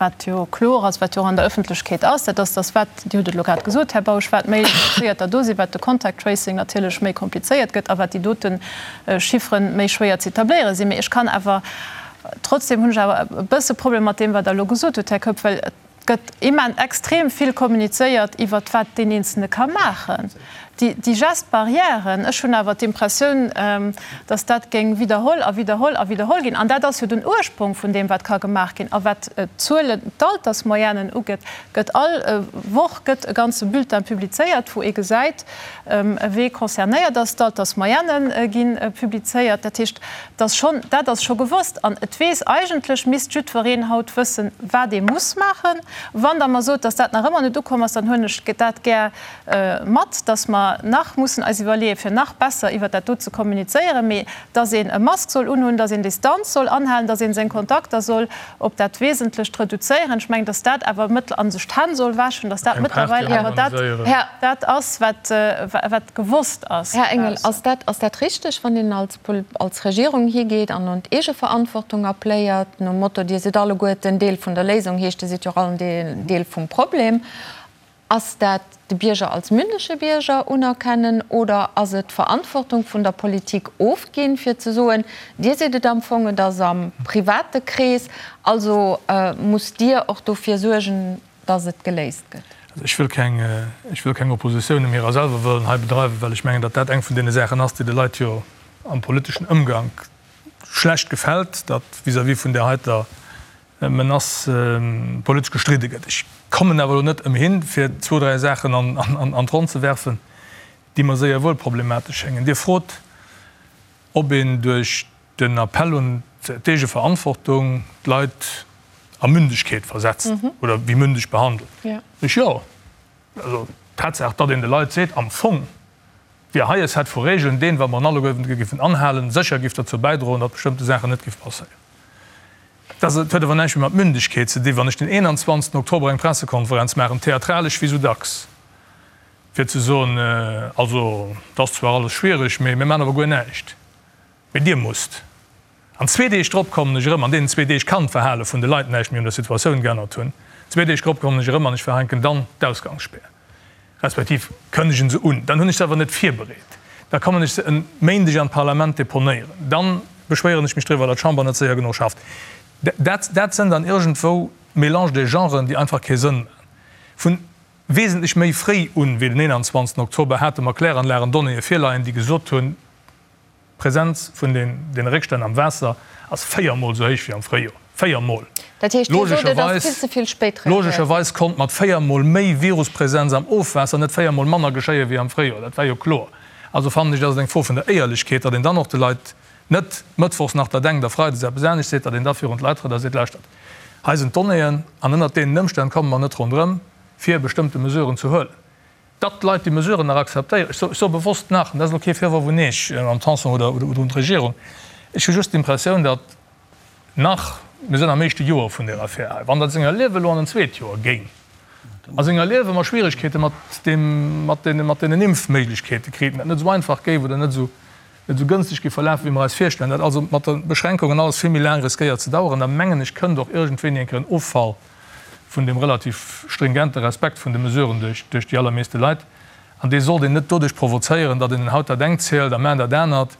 wat jo kloer ass, wat jo och an der Öffentlechkeet ass, dat ass, dass wat, Dir hutt et elo grad gesot, Här Bausch, wat méi Infizéierter do sinn, wat de Contact tracing natierlech méi komplizéiert gëtt a wat déi dote Chiffren méi schwéier ze etabléiere sinn. Mee ech kann awer, trotzdem hunn ech awer e bësse Problem mat deem, wat Der elo gesot hutt, Här Keup, well et gëtt immen extrem vill kommunizéiert iwwert wat deen Eenzelne ka maachen. Déi Gestes barrièren, ech hunn awer d'Impressioun, datt dat géing widderholl a widderholl a widderholl ginn. An dat ass jo den Ursprong vun deem, wat ka gemaach ginn. A wat d'Zuelen, d'Altersmoyennen ugeet, gëtt all Woch gëtt e ganze Bulletin publizéiert, wou ee gesäit, wee concernéiert ass. D'Altersmoyenne gi publizéiert. Dat heescht, dass schonn, dat ass scho gewosst an et weess eigentlech, misst jiddwereen haut wëssen, wat ee muss maachen. Wann Der mer sot, dass dat nach ëmmer net ukomm ass, dann huelen ech dat gär mat, dass mer nach mussen eis iwwerleeën, fir nach besser iwwert dat do ze kommunizéieren, mee dass een e Mask soll unhunn, dass een Distanz soll anhalen, dass ee seng Kontakter soll op dat Wesentlecht reduzéieren. Ech mengen, dass dat awer mëttl a sech d'Hänn soll wäschen, dass dat mëttlerweil awer dat, dat ass, wat, wat gewosst ass. Här Engel, ass dat, ass dat richteg, wann een als, als Regierung higeet an un d'Eegeverantwortung appléiert, nom Motto, Dir sidd alleguerten Deel vun der Léisung, heescht, Dir sidd jo och all en Deel vum Problem? Ass dat de Bierger als mündege Bierger unerkennen oder ass et d'Verantwortung vun der Politik ofginn, fir ze soen, Dir sidd et am Fong, et ass am private Krees, also musst Dir och dofir suergen, dass et geléist gëtt? Also ech wëll keng, ech wëll keng Oppositioun ëm hirer selwer wëllen hei bedreiwen, well ech mengen, datt dat eng vun deene Saachen ass, déi de Leit jo am politeschen Ëmgank schlecht gefält, datt vis-à-vis vun där heiter Menace politesch gestridde gëtt. Ech kommen awer elo net ëmhin, fir zwou, dräi Saachen an d'Ronn ze werfen, déi mer séier wuel problematesch schéngen. Dir frot, ob een duerch den Appell un d'Eegeverantwortung d'Leit a Mündegkeet versetzt oder wéi mündeg behandelt. Ech jo. Also d'Tatsaach, datt een de Leit seet, am Fong wier hei e Set vu Regeln, deen, wa mer en alleguerten géifen anhalen, sécher géif derzou bäidroen, datt bestëmmte Saachen net géif passéieren. Dat huet awer näischt méi mat Mündegkeet ze dinn, wann ech den 21 Oktober eng Pressekonferenz maachen, theatralesch wéi sou dacks, fir ze soen, also et ass zwar alles schwiereg, mee mir maachen awer guer näischt, mee Dir musst. An zwee Deeg drop kommen ech erëm, an deenen zwee Deeg kann d'Verhale vun de Leit näischt méi un der Situatioun geännert hunn, zwee Deeg drop kommen ech erëm an ech verhänken dann d'Ausgangsspäer, respektiv kënnegen se un. Dann hunn ech se awer net virbereet. Da kommen ech se e Méindeg an d'Parlament deponéieren. Dann beschwéieren ech mech driwwer, datt d'Chamber net séier genuch schafft. Dat, dat sënn dann iergendwou Mélange des genres, déi einfach kee Sënn maachen. Vun wesentlech méi fréi un wéi den 21. Oktober hate mer Kläranlagen Donnéeë virleien, déi gesot hunn, D'Presenz vun deene Réckstänn am Waasser ass véiermol esou héich wéi am Fréijoer. Véiermol. Dat heescht, Dir sot, et ass vill ze vill spéit reagéiert. Logescherweis konnt mat véiermol méi Viruspresenz am Ofwaasser net véiermol manner geschéie wéi am Fréijoer. Dat war jo kloer. Also fannen ech, dat ass eng Fro vun der Éierlechkeet, datt een dann och de Leit net mëttwochs nach dat engt a freides eppes anescht seet, datt een da virun d'Leit trëtt a seet, Lauschtert, hei sinn d'Donnéeën an ënnert deenen Ëmstänn komme mer net ronderëm, fir bestëmmte Mesuren ze huelen. Datt d'Leit déi Mesuren nach akzeptéieren, ech soe bewosst nach, an dat ass elo kee Virworf un Iech, Mme Tanson, oder un d'Regierung, ech hu just d'Impressioun, datt nach, mir sinn am éischte Joer vun där Affär hei, wann dat senger Liewe elo an en zweet Joer géing, a senger Liewe mer Schwierigkeete mat deem, mat deene, mat deenen Impfméiglechkeete kriten, dat net esou einfach géif oder net esou, net esou gënschteg géif verlafen, wéi mer eis virstellen, dat also mat de Beschränkungen alles vill méi laang riskéiert ze daueren, da mengen ech, kënnt och iergendwéini eng Kéier en Offall vun deem relativ stringente Respekt vun de Mesuren duerch, duerch déi allermeeste Leit. An dee sollt een net doduerch provozéieren, datt een haut dat engt zielt a mar dat anert.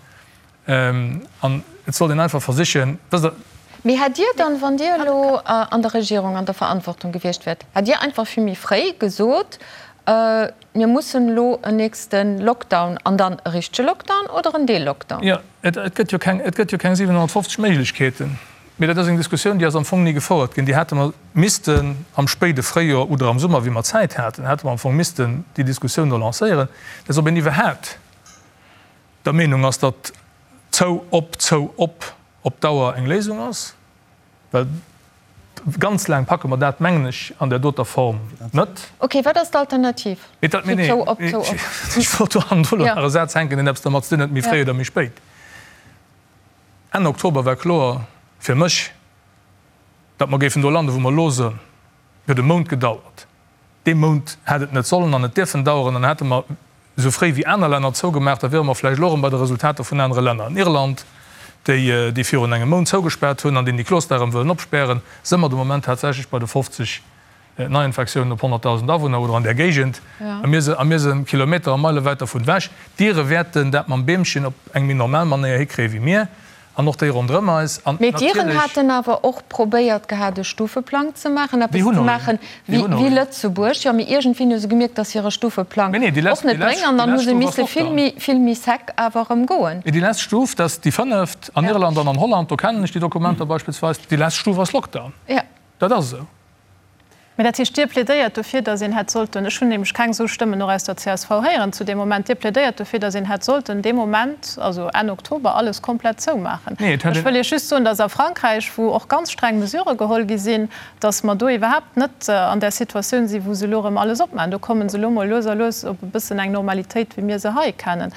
An et sollt een einfach versichen, wësst Der. Mee hätt Dir dann, wann Dir elo an der Regierung an der Verantwortung gewiescht wäert, hätt Dir einfach vill méi fréi gesot, mir mussen elo en nächste Lockdown an dann e richtege Lockdown oder en Deel-Lockdown? Jo, et gëtt jo keng, et gëtt jo keng 750 Méiglechkeeten. Mee dat ass eng Diskussioun, déi ass am Fong ni gefouert ginn. Déi hätte mer missten am spéide Fréijoer oder am Summer, wéi mer Zäit haten, hätte mer am Fong missten déi Diskussioun do lancéieren, dass ob een iwwerhaapt der Meenung ass, datt zou, op, zou, op op Dauer eng Léisung ass, well ganz laang packe mer dat, mengen ech, an där doter Form net. Ok, wat ass d'Alternativ zu zou, op, zou, op? Ech wollt do hannendru lo nach e Saz hänken, deen eppes dermat ze dinn huet, méi fréi oder méi spéit. Enn Oktober war kloer fir mech, datt mer géifen do landen, wou mer elo sënn. Et huet e Mount gedauert. Dee Mount hätt et net sollen an net dierfen daueren. Dann hätte mer esou fréi wéi aner Länner zougemaach, da wiere mer vläicht elo erëm bei de Resultater vun anere Länner. An Irland, déi déi virun engem Mount zougespaart hunn an deen déi Kloster erëm wëllen opspären, së mer de Moment tatsächlech bei de 50 Neiinfektiounen op 100.000 Awunner oder an där Géigend. A mir a mir së Kilometer a Meile wäit dervun ewech. D'Ire wäerten dat mam Beemchen op eng méi normal Manéier hikréie wéi mir. An och déi ronderëm eis. An Mee d'Iren natierlech. haten awer och probéiert gehat, e Stufeplang ze maachen, eppes Déi hunn ze och een. maachen Déi wéi hunn och wéi een. Lëtzebuerg. Jo, mee iergendwéi hu se gemierkt, datt hire Stufeplang Mee nee, déi och lescht, net déi lescht, bréngt. An déi dann hu lescht se Stuf ass misse vill Lockdown. méi, vill méi sec awer erëm goen. Mee déi lescht Stuf, dat ass déi fënneft an Ja. Irland an an Holland, do kennen ech déi Dokumenter beispillsweis, déi lescht Stuf ass Lockdown. Ja. Dat ass esou. Mä dat heescht, Dir plädéiert dofir, datt een hätt sollten, ech hunn nämlech keng esou Stëmmen och aus der csv héieren zu deem Moment, Dir plädéiert dofir, datt een hätt sollten dee Moment, also Enn Oktober, alles komplett zoumaachen. Nee, et hätt Ech een. wëll Iech just soen, datt a Frankräich, wou och ganz streng Mesurë geholl gi sinn, datt mer do iwwerhaapt net an där Situatioun sinn, wou se elo erëm alles opmaachen. Do komme se elo mol lues a lues op e bëssen eng Normalitéit, wéi mir se hei kennen.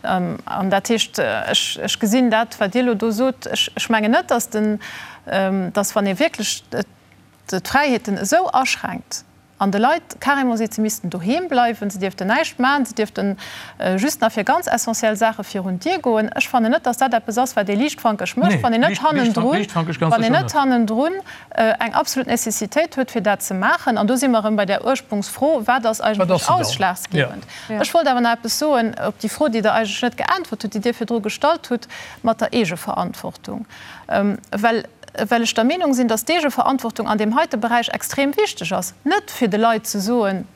An dat heescht, ech, ech gesinn dat, wat Dir elo do sot, ech, ech mengen net, datt den, datt wann ee wierklech d'Fräiheeten esou aschränkt an de Leit carrément seet, se missten doheem bleiwen, se dierften näischt maachen, se dierften just nach fir ganz essentiell Saache virun d'Dier goen. Ech fannen net, datt dat eppes ass, wat ee liichtfankeg mécht, wann een net hannendrun, wann een net hannendrun eng absolut Nécessitéit huet, fir dat ze maachen. An do si mer erëm bei där Ursprungsfro, Wat ass eigentlech ausschlagsgebend? Ech wollt awer nach eppes soen op déi Fro, déi Der eigentlech net geäntwert hutt, déi Dir virdru gestallt hutt, mat der Eegeverantwortung. Well well ech der Meenung sinn, dass d'Eegeverantwortung an deem heite Beräich extrem wichteg ass, net fir de Leit ze soen,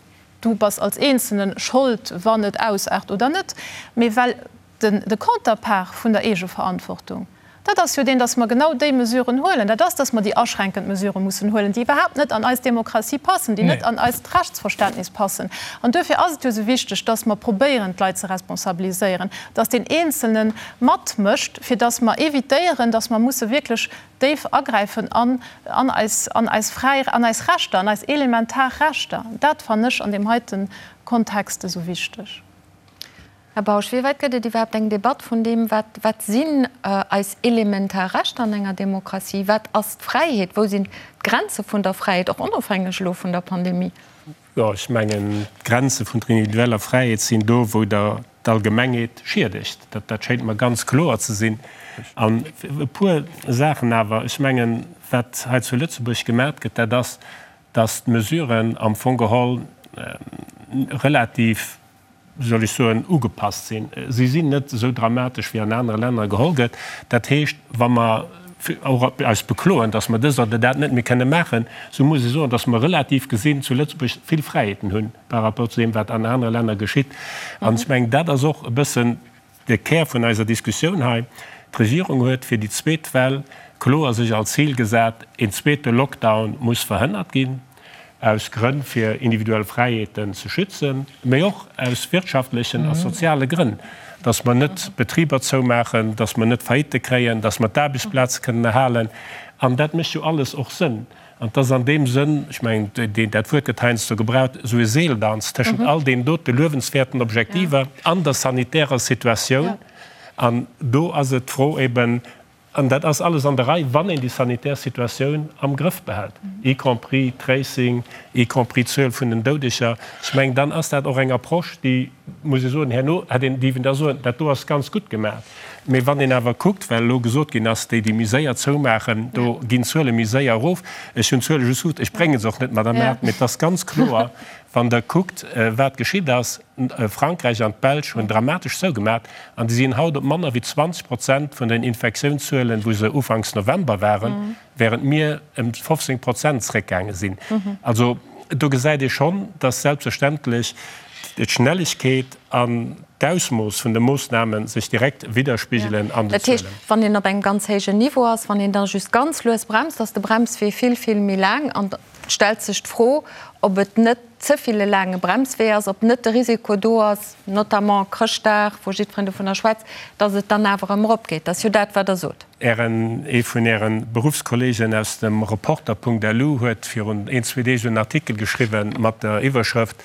du bass als Eenzelne Schold, wann et ausaart oder net, mee well de Counterpart vun der Eegeverantwortung, dat ass jo deen, dass mer genau déi Mesuren huelen, dat ass, dass mer déi aschränkend Mesurë mussen huelen, déi iwwerhaapt net an eis Demokratie passen, déi net an eist Rechtsverständnis passen. An duerfir ass et jo esou wichteg, dass mer probéieren, d'Leit ze responsabiliséieren, dass deen Eenzelne matmécht, fir dass mer évitéieren, dass mer musse wierklech déif agräifen an an eis, an eis fräi, an eis Rechter, an eis elementar Rechter. Dat fannen ech an deem heite Kontext esou wichteg. Här Bausch, wéi wäit gëtt et iwwerhaapt eng Debatt vun deem, wat, wat sinn eis elementar Rechter an enger Demokratie? Wat ass d'Fräiheet? Wou sinn d'Grenze vun der Fräiheet, och onofhängeg elo vun der Pandemie? Jo, ech mengen, d'Grenze vun der individueller Fräiheet sinn do, wou Der d'Allgemengheet schiedegt. Dat schéint mer ganz kloer ze sinn. An e puer Saachen awer. Ech mengen, wat hei zu Lëtzebuerg gemat gëtt, dat ass, dass d'Mesuren am Fong geholl relativ, wéi soll ech soen, ugepasst sinn. Si sinn net esou dramatesch, wéi an anere Länner geholl gëtt. Dat heescht, wa mer och eis bekloen, datt mer dëst oder dat net méi kënne maachen, esou muss ech soen, datt mer relativ gesinn zu Lëtzebuerg vill Fräiheeten hunn par rapport zu deem, wat an anere Länner geschitt. An ech mengen, dat ass och e bëssen de Kär vun eiser Diskussioun hei. D'Regierung huet fir déi zweet Well. kloer sech als Zil gesat, een zweete Lockdown muss verhënnert ginn, aus Grënn fir individuell Fräiheeten ze schützen, mee och aus wirtschaftlechen a soziale Grënn, dass mer net Betriber zoumaachen, dass mer net Faillite kréien, dass mer d'Aarbechtsplaze kënnen erhalen. An dat mécht jo alles och Sënn. An et ass an deem Sënn, ech mengen, dat Wuert gëtt heiansdo gebraucht, esou e Seeldanz tëschent all deenen dote luewenswäerten Objektiver an der sanitärer Situatioun. An do ass et d'Fro eben, an dat ass alles an der Rei, wann een déi sanitär Situatioun am Grëff behält, y compris Tracing, y compris d'Zuel vun den Doudeger, ech mengen, dann ass dat och eng Approche, déi, muss ee soen, herno hätt een dierfen da soen, dat do ass ganz gutt gemaach. Mee wann een awer kuckt, well elo gesot ginn ass, déi, déi méi séier zoumaachen, do ginn d'Zuele méi séier erof. Ech hunn d'Zuele just gutt, ech brénge se och net, Madame Err, mee et ass ganz kloer, wann Der kuckt, wat geschitt ass, Frankräich an d'Belsch hunn dramatesch zougemat an déi sinn haut op manner wéi 20 Prozent vun den Infektiounszuelen, wou se ufanks November waren. während mir ëm 15 Prozent zréckgaange sinn. Also do gesäit ee schonn, dass selbstverständlech d'Schnelligkeet an d'Ausmooss vun de Moossname sech direkt widderspigelen an den Dat heescht, Zuelen. wann een op engem ganz héijen Niveau ass, wann een da just ganz lues bremst, ass de Bremswee vill, vill méi laang. An et stellt sech d'Fro, ob et net ze vill e laange Bremswee ass, ob net de Risiko do ass, notamment Chrëschtdag, wou jiddwereen dovunner schwätzt, dass et dann awer erëm eropgeet. Dat ass jo dat, wat Der sot. Ären, ee vun Äre Beruffskollegen aus dem Reporter.lu huet virun een, zwee Deeg en Artikel geschriwwen mat der Iwwerschrëft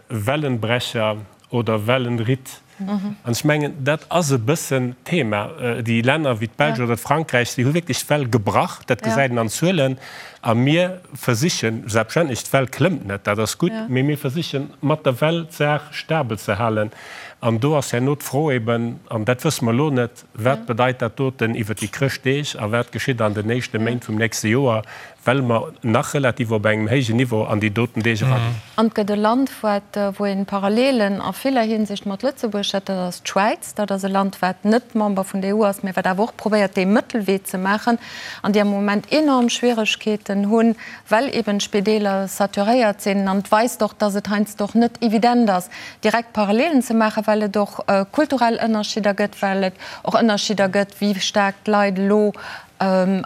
Wellenbrecher oder Wellenritt. An ech mengen, dat ass e bëssen d'Thema. Déi Länner wéi d'Belsch oder d'Frankräich, déi hu wierklech d'Well gebrach, dat gesäit een an Zuelen. A mir versichen, selbstverständlech, d'Well klëmmt net, dat ass gutt, mee mir versichen mat der Well d'Saach stabel ze halen. An do ass herno d'Fro eben, an dat wësse mer elo net, Wat bedeit dat doten iwwer déi Chrëschtdeeg a wat geschitt an den éischte Méint vum nächste Joer, well mer nach relativ op engem héijen Niveau an déi doten Deeg eraginn? An et gëtt e Land, wat, wou een Parallelen a viller Hinsicht mat Lëtzebuerg huet, dat ass d'Schwäiz. Dat ass e Land, wat net Member vun der EU ass, mä wat awer och probéiert, dee Mëttelwee ze maachen an déi am Moment enorm Schwieregkeeten hunn, well eben d'Spideeler saturéiert sinn. An et weist och, dass et heiansdo och net evident ass, direkt Parallelen ze maachen, well et och kulturell Ënnerschidder gëtt, well et och Ënnerschidder gëtt, wéi staark d'Leit elo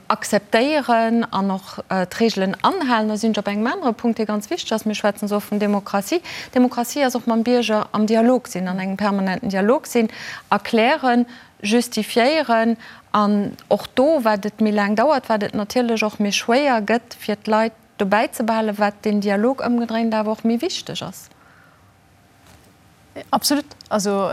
akzeptéieren an och d'Reegelen anhalen. Da sinn ech op engem anere Punkt, dee ganz wichteg ass. Mir schwätzen esou oft vun Demokratie. Demokratie ass och mam Bierger am Dialog sinn, an engem permanenten Dialog sinn, erklären, justifiéieren. An och do, wat et méi laang dauert, wat et natierlech och méi schwéier gëtt, fir d'Leit dobäi ze behalen, wat deen Dialog ëmgedréint awer och méi wichteg ass. Absolut. Also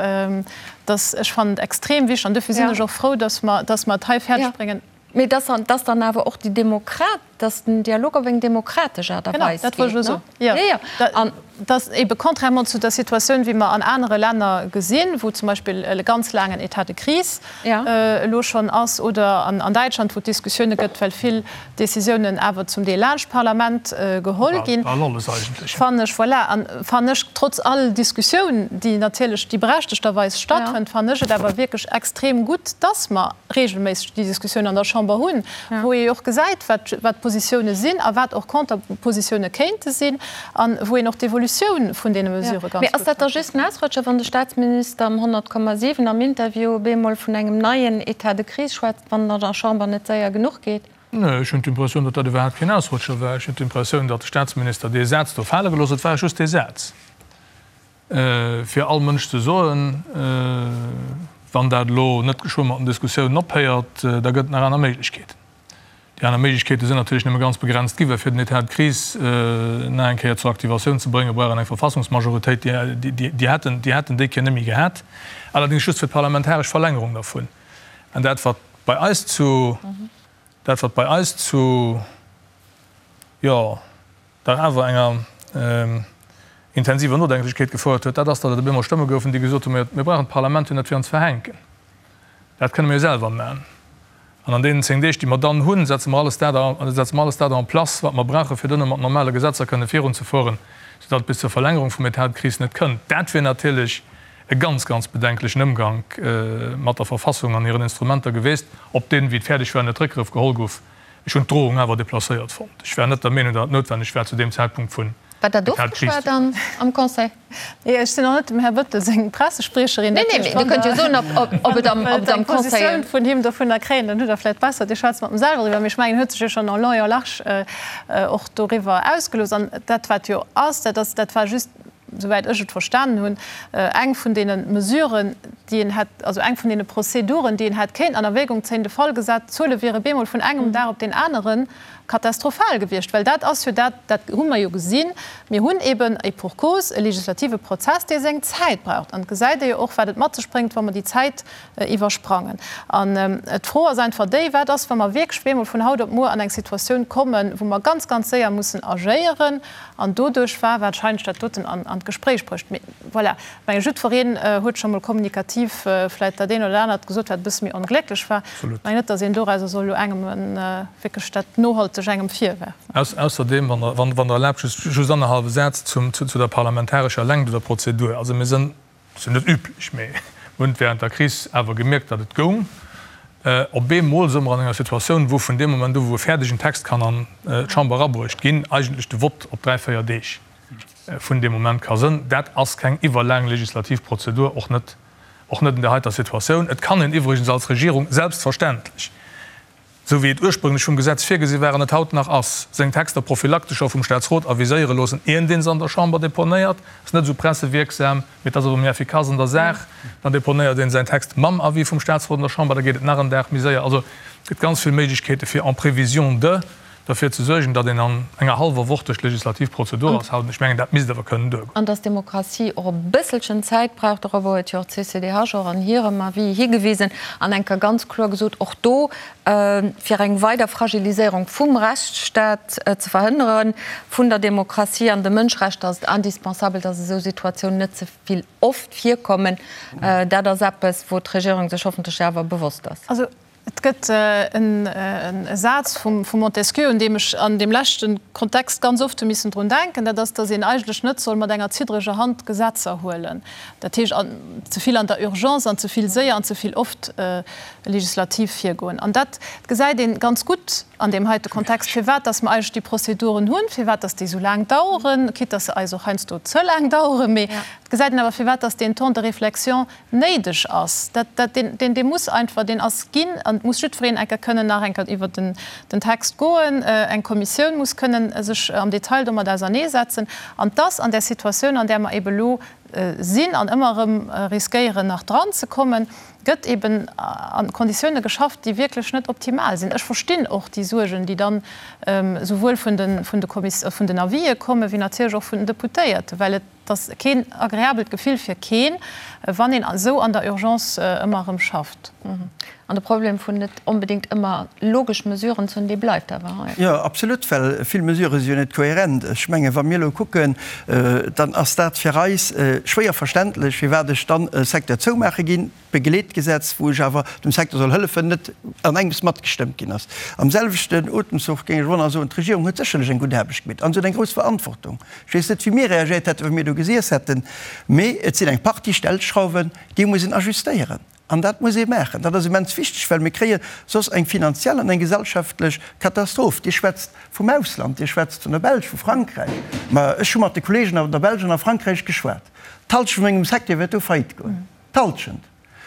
dass, ech fannen et extrem wichteg an dofir sinn ech och frou, dass mer, dass mer et hei fäerdeg bréngen. Mee dass, dass dann awer och déi Demokrat, dass den Dialog op eng demokratesch Aart a Weis geet. Genau, dat wollt ech elo soen. Jo, jo. Dass ebe contrairement zu der Situatioun, wéi mer an anere Länner gesinn, wou zum Beispill e ganz laangen État de crise elo schonn ass, oder an Däitschland, wou et Diskussioune gëtt, well vill Décisiounen awer zum Deel laanscht d'Parlament geholl ginn, fannen ech, voilà, an fannen ech, trotz all Diskussioun, déi natierlech, déi berechtegterweis stattfënnt, fannen ech et awer wierklech extrem gutt, dass mer regelméisseg déi Diskussioun an der Chamber hunn, wou ee jo och gesäit, wat, wat d'Positioune sinn a wat och Konterpositioune kéinte sinn a wou een och d'Evolutioun vun deene Mesurë ganz gutt Mee ass dat da just en Ausrutscher, wann de Staatsminister am 100,7 am Interview op eemol vun engem neien État de crise schwätzt, wann et an der Chamber net séier genuch geet? Nee, ech hunn d'Impressioun, datt dat iwwerhaapt keen Ausrutscher war. Ech hunn d'Impressioun, datt de Staatsminister dee Saz do fale gelooss huet. Et war just dee Saz, fir all Mënsch ze soen, Wann dat elo net geschwë mat den Diskussiounen ophéiert, da gëtt et nach aner Méiglechkeeten. Déi aner Méiglechkeete sinn natierlech nëmme ganz begrenzt gi, well fir den État de crise nach eng Kéier zur Aktivatioun ze bréngen, brauch een eng Verfassungsmajoritéit. Déi hätten déi hätten déi Kéier net méi gehat, allerdéngs just fir d'parlamentaresch Verlängerung dervun. An dat, wat bei eis zu, dat, wat bei eis zu, jo, dach awer enger intensiver Nodenklechkeet gefouert huet, dat ass, datt et op eemol Stëmme goufen, déi gesot hunn, Mir brauchen d'Parlament jo net fir ons verhänken, dat kënne mir jo selwer maachen. An an deenen 10 Deeg, déi mer dann hunn, setze mer alles dat, setze mer alles dat en place, wat mer brauchen, fir duerno mat normale Gesetzer kënne virunzefueren, soudatt et bis zur Verlängerung vum État de crise net kënnt. Dat wier natierlech e ganz, ganz bedenklechen Ëmgank mat der Verfassung an hiren Instrumenter geweest, op deen, wéi et fäerdeg war, net Réckgrëff geholl gouf. Ech hunn d'Drohung awer déplacéiert fonnt. Ech war net der Meenung, datt et noutwenneg war, zu deem Zäitpunkt vun. War dat ofgeschwat am Conseil? Nee, ech sinn och net dem Här Bettel seng Pressespriecherin. Nee, nee, mee Dir kënnt jo soen, ob et am Conseil. Eng Positioun vun him dovunner kréien, dann hutt Der vläicht besser, Dir schwätzt mat em selwer driwwer. Mee ech mengen, en huet sech jo schonn en long et en large och doriwwer ausgelooss. An dat, wat jo ass, dat ass, dat war just, souwäit ech et verstanen hunn, eng vun deene Mesuren, déi een hätt, also eng vun deene Prozeduren, déi een hätt kéinten an Erwägung zéien, de Fall gesat, d'Zuele wiere bemol vun engem Dag op deen aneren katastrophal gewiescht. Well dat ass jo dat, dat hu mer jo gesinn, mir hunn eben, et pour cause, e legislative Prozess, dee seng Zäit braucht. An et gesäit ee jo och, wat et mat sech bréngt, wa mer déi Zäit iwwersprangen. An d'Fro ass einfach déi, Wat ass, wa mer wierklech bemol vun haut op muer an eng Situatioun kommen, wou mer ganz, ganz séier mussen agéieren? An doduerch war warscheinlech dat doten an d'Gespréich bruecht. Mee voilà, ech menge jiddwereen huet scho mol kommunikativ vläicht dat eent oder anert gesot, wat e bësse méi onglécklech war. Ech mengen net, datt een dorauser soll elo engem wierklech dat nohalteg engem virwerfen. Ausserdeem, wann Der erlaabt, just annerhallwe Saz zu der parlamentarescher Längt oder Prozedur. Also mir sënn, ass jo net üblech, mee mir hunn et während der Kris awer gemierkt, datt et goung. Op eemol si mer an enger Situatioun, wou vun deem Moment u wou e fäerdegen Text kann an d'Chamber erabruecht ginn, eigentlech de Vott op dräi, véier Deeg vun deem Moment ka sënn. Dat ass keng iwwerlaang legislativ Prozedur, och net, och net an där heiter Situatioun. Et kann een iwwregens als Regierung selbstverständlech, esou wéi et ursprünglech vum Gesetz virgesi war an et haut nach ass, seng Texter prophylaktesch scho vum Staatsrot aviséiere loossen, ieren dee se an der Chamber deponéiert. Ass net esou pressewierksam, mee et ass awer méi effikass an der Saach. Dann deponéiert een säin Text mam Avis vum Staatsrot an der Chamber, da geet et nach en Dag méi séier. Also et gëtt ganz vill Méiglechkeete fir en prévision de derfir ze suergen, datt een an enger hallwer Woch duerch d'legislativ Prozedur ass haut. Ech mengen, dat misst awer kënnen duergoen. An datt d'Demokratie och e bësselchen Zäit brauch, dorobber huet jo och d'CCDH och an hirem Avis higewisen an eng Kéier ganz kloer gesot, och do, fir eng weider Fragiliséierung vum Rechtsstaat ze verhënneren, vun der Demokratie an de Mënschrechter, ass et indispensabel, datt esou Situatiounen net ze vill oft virkommen. Dat ass eppes, wou d'Regierung sech hoffentlech awer bewosst ass. Et gëtt e Saz vum Montesquieu, un deem ech an deem leschte Kontext ganz oft hu missen drun denken, dat ass, datt een eigentlech net soll mat enger ziddreger Hand Gesetzer huelen, dat heescht ze vill an der Urgence an ze vill séier an ze vill oft legislativ virgoen. An dat gesäit ee ganz gutt an deem heite Kontext, firwat datt mer eigentlech déi Prozeduren hunn, firwat datt déi esou laang daueren, quitte datt se eis och heiansdo ze laang daueren, mee et gesäit een awer, firwat datt deen Temps de réflexion néideg ass, dat, dat, deen, deen, dee muss einfach, deen ass ginn an et muss jiddwereen eng Kéier kënnen nach eng Kéier iwwert den, den Text goen, eng Kommissioun muss kënnen sech am Detail domat auserneesetzen. An dass an där Situatioun, an där mer ebe elo sinn an ëmmer erëm riskéieren nach dran ze kommen, gëtt eben a Konditioune geschafft, déi wierklech net optimal sinn. Ech verstinn och déi Suergen, déi dann esouwuel vun de, vun de Kommis, vun den Avisë kommen, wéi natierlech och vun den Deputéierten, well et, Et ass keen agreabelt Gefill fir keen, wann een esou an der Urgence ëmmer erëm schafft. An de Problem vun net onbedéngt ëmmer logesch Mesuren ze hunn, dee bleift awer hei. Jo, absolut, well vill Mesurë si jo net kohärent. Ech mengen, wa mir elo kucken, dann ass dat fir eis schwéier verständlech, firwat ech dann e Secteur zoumaache ginn, Begleetgesetz, wou ech awer dem Secteur soll hëllefen, net an engems matgestëmmt ginn ass. Am selwechten Otemzuch géing ech och nach soen, d'Regierung huet sécherlech eng gutt Aarbecht gemeet an se huet eng grouss Verantwortung. Ech weess net, wéi mir reagéiert hätten, wa mir do gesiess hätten, mee et sinn eng Partie Stellschrauwen, déi muss een ajustéieren an dat muss ee maachen. Dat ass immens wichteg, well mir kréie soss eng finanziell an eng gesellschaftlech Katastroph. Dir schwätzt vum Ausland, Dir schwätzt vun der Belsch, vu Frankräich, ma ech hu mat de Kollegen an der Belsch an a Frankräich geschwat, d'Halschent vun mengem Secteur wäert do faillite goen. D'Halschent.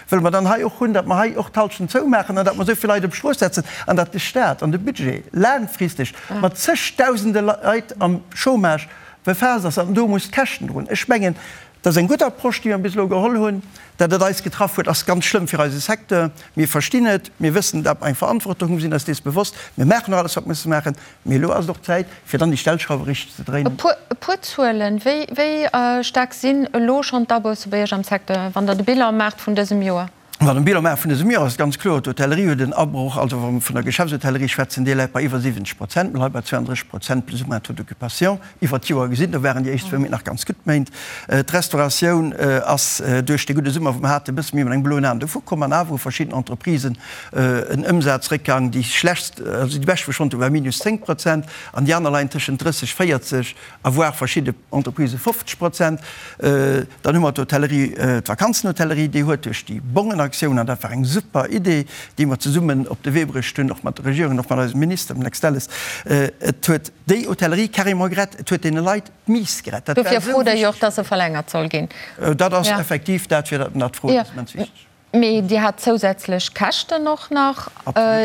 Wëlle mer dann hei och hunn, datt mer hei och d'Halschent zoumaachen an datt mer esou vill Leit op d'Strooss setzen an datt de Stat an de Budget laangfristeg mat zegdausende Leit am Chômage befaasst ass an do muss d'Käschten droen? Ech mengen, dat ass eng gutt Approche, déi mer bis elo geholl hunn. Datt et eis getraff huet, ass ganz schlëmm fir eise Secteur. Mir verstinn et, mir wëssen, datt mer eng Verantwortung hunn, mir sinn eis dees bewosst. Mir maachen och alles, wat mer musse maachen. Mee elo ass et och Zäit, fir dann déi Stellschrauwe richteg ze dréinen. E puer Zuelen, Wéi staark sinn elo schonn d'Abousse bei Iech am Secteur, wann Der de Bilan maacht vun dësem Joer? Wann e Bilan maache vun dësem Joer, ass et ganz kloer, d'Hotellerie huet en Abroch, also wa mer vun der Geschäftshôtellerie schwätzen, déi läit bei iwwer 70 Prozent, mir leie bei 32 Prozent plus ou moins Taux d'occupation iwwer d'Joer gesinn. Do waren déi éischt zwou Méint nach ganz gutt Méint. D'Restauratioun ass duerch dee gudde Summer, wou mer haten, e bësse méi mat engem bloen Aen dovu komm an awer hu verschidden Entreprisen en Ëmsazréckgang, déi schlechtst, also déi bescht wou ech fonnt hu war minus 10 Prozent an déi aner leien tëschent 30, 40 a voire verschidde Entreprisë 50 Prozent. Dann hu mer d'Hotellerie, d'Vakanzenhotellerie, déi huet duerch déi Bongen a. Aktioun, an dat war eng super Idee, déi mer zesummen op de Wee bruecht hunn, och mat der Regierung an och mat eisem Minister, dem Lex Delles, et huet déi Hotellerie carrément gerett, et huet deene Leit d'Miss gerett. Dat war Dofir esou frot Der jo och, wichteg. dass se verlängert soll ginn. Dat ass effektiv dat, fir dat mer dat froen, dat ass immens wichteg. Mee Dir hat zousätzlech Käschten och nach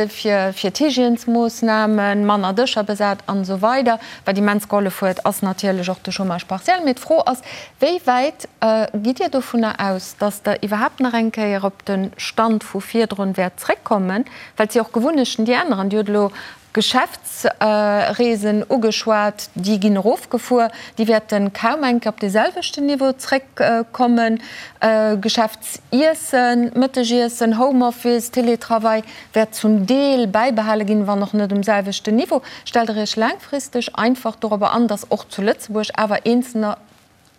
fir d'Hygiènesmoossnamen, manner Dëscher besat an esou weider. Wat immens gehollef huet, ass natierlech och de Chômage partiel. Mee d'Fro ass, Wéi wäit gitt Dir dovunner aus, datt Der iwwerhaapt nach eng Kéier op de Stand vu virdrun wäert zréckkommen? Well et si och Gewunnechten, déi änneren. Dir hutt elo Geschäftsreesen ugeschwat, déi ginn erofgefuer, déi wäerte kaum eng Kéier op dee selwechten Niveau zréckkommen. Geschäftsiessen, Mëttegiessen, Homeoffice, Teletravail wäert zum Deel bäibehale ginn, wann och net um selwechten Niveau. Stellt Der Iech laangfristeg einfach dorobber an, datt och zu Lëtzebuerg awer Eenzelner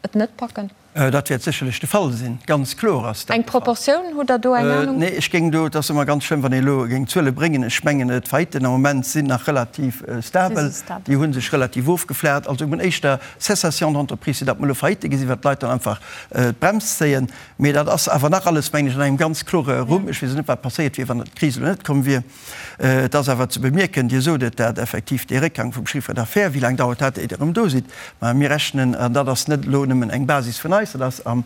et net packen? Dat wäert sécherlech de Fall sinn, ganz kloer ass dat Eng de Fall. Proportioun, hutt Der do eng Anung? Nee, ech géing do, et ass ëmmer ganz schlëmm, wann ee elo géing Zuele bréngen, ech mengen, d'Faillitten am Moment sinn nach relativ stabel, déi hu sech relativ ofgeflacht. Also mir hunn éischter Cessation d'entreprise, wéi datt mer elo Faillitte gesinn, well d'Leit dann einfach d'Brems zéien. Mee dat ass awer nach alles, mengen ech, an engem ganz klore Rumm. Ech weess och net, wat passéiert wier, wann d'Kris elo net komm wier. Et ass awer ze bemierken, Dir sot et, dat effektiv dee Réckgang vum Chiffre d'affaires, wéi laang dauert dat, éier Der erëm do sidd? Mä mir rechnen, an dat ass net elo nëmmen eng Basis vun eis, dat ass am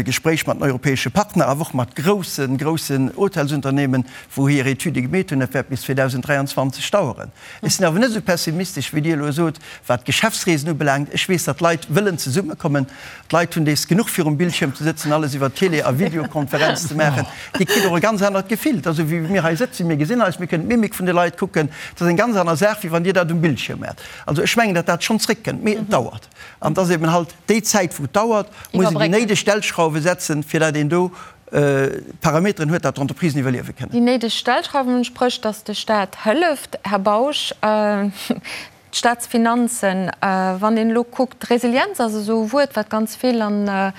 Gespréich mat den europäesche Partner, awer och mat groussen, groussen Hotelsunternehmen, wou hir Etüde gemeet hunn, dat wäert bis 2023 daueren. Ech sinn awer net esou pessimistesch, wéi Dir elo sot, wat d'Geschäftsreesen ubelaangt. Ech weess, datt d'Leit wëllen zesummekommen. D'Leit hunn dees genuch virum Bildschierm ze sëtzen, alles iwwer Télé a Videokonferenz ze maachen. Dir kritt och e ganz anert Gefill. Et ass esou wéi mir hei sëtzen, mir gesinn eis, mir kënnen d'Mimik vun de Leit kucken. Et ass eng ganz aner Saach, wéi wann Dir dat um Bildschierm maacht. Also ech mengen, datt dat schonn zréckkënnt, mee et dauert. An et ass eben halt déi Zäit, wou et dauert, muss een déi néideg Stellschrauwe setzen, fir datt een do Parameteren huet, datt d'Entreprisen iwwerliewe kënnen. Déi néideg Stellschrauwen, spréch datt de Staat hëlleft, Här Bausch. D'Staatsfinanzen, wann een elo kuckt, Resilienz ass esou e Wuert, wat ganz vill an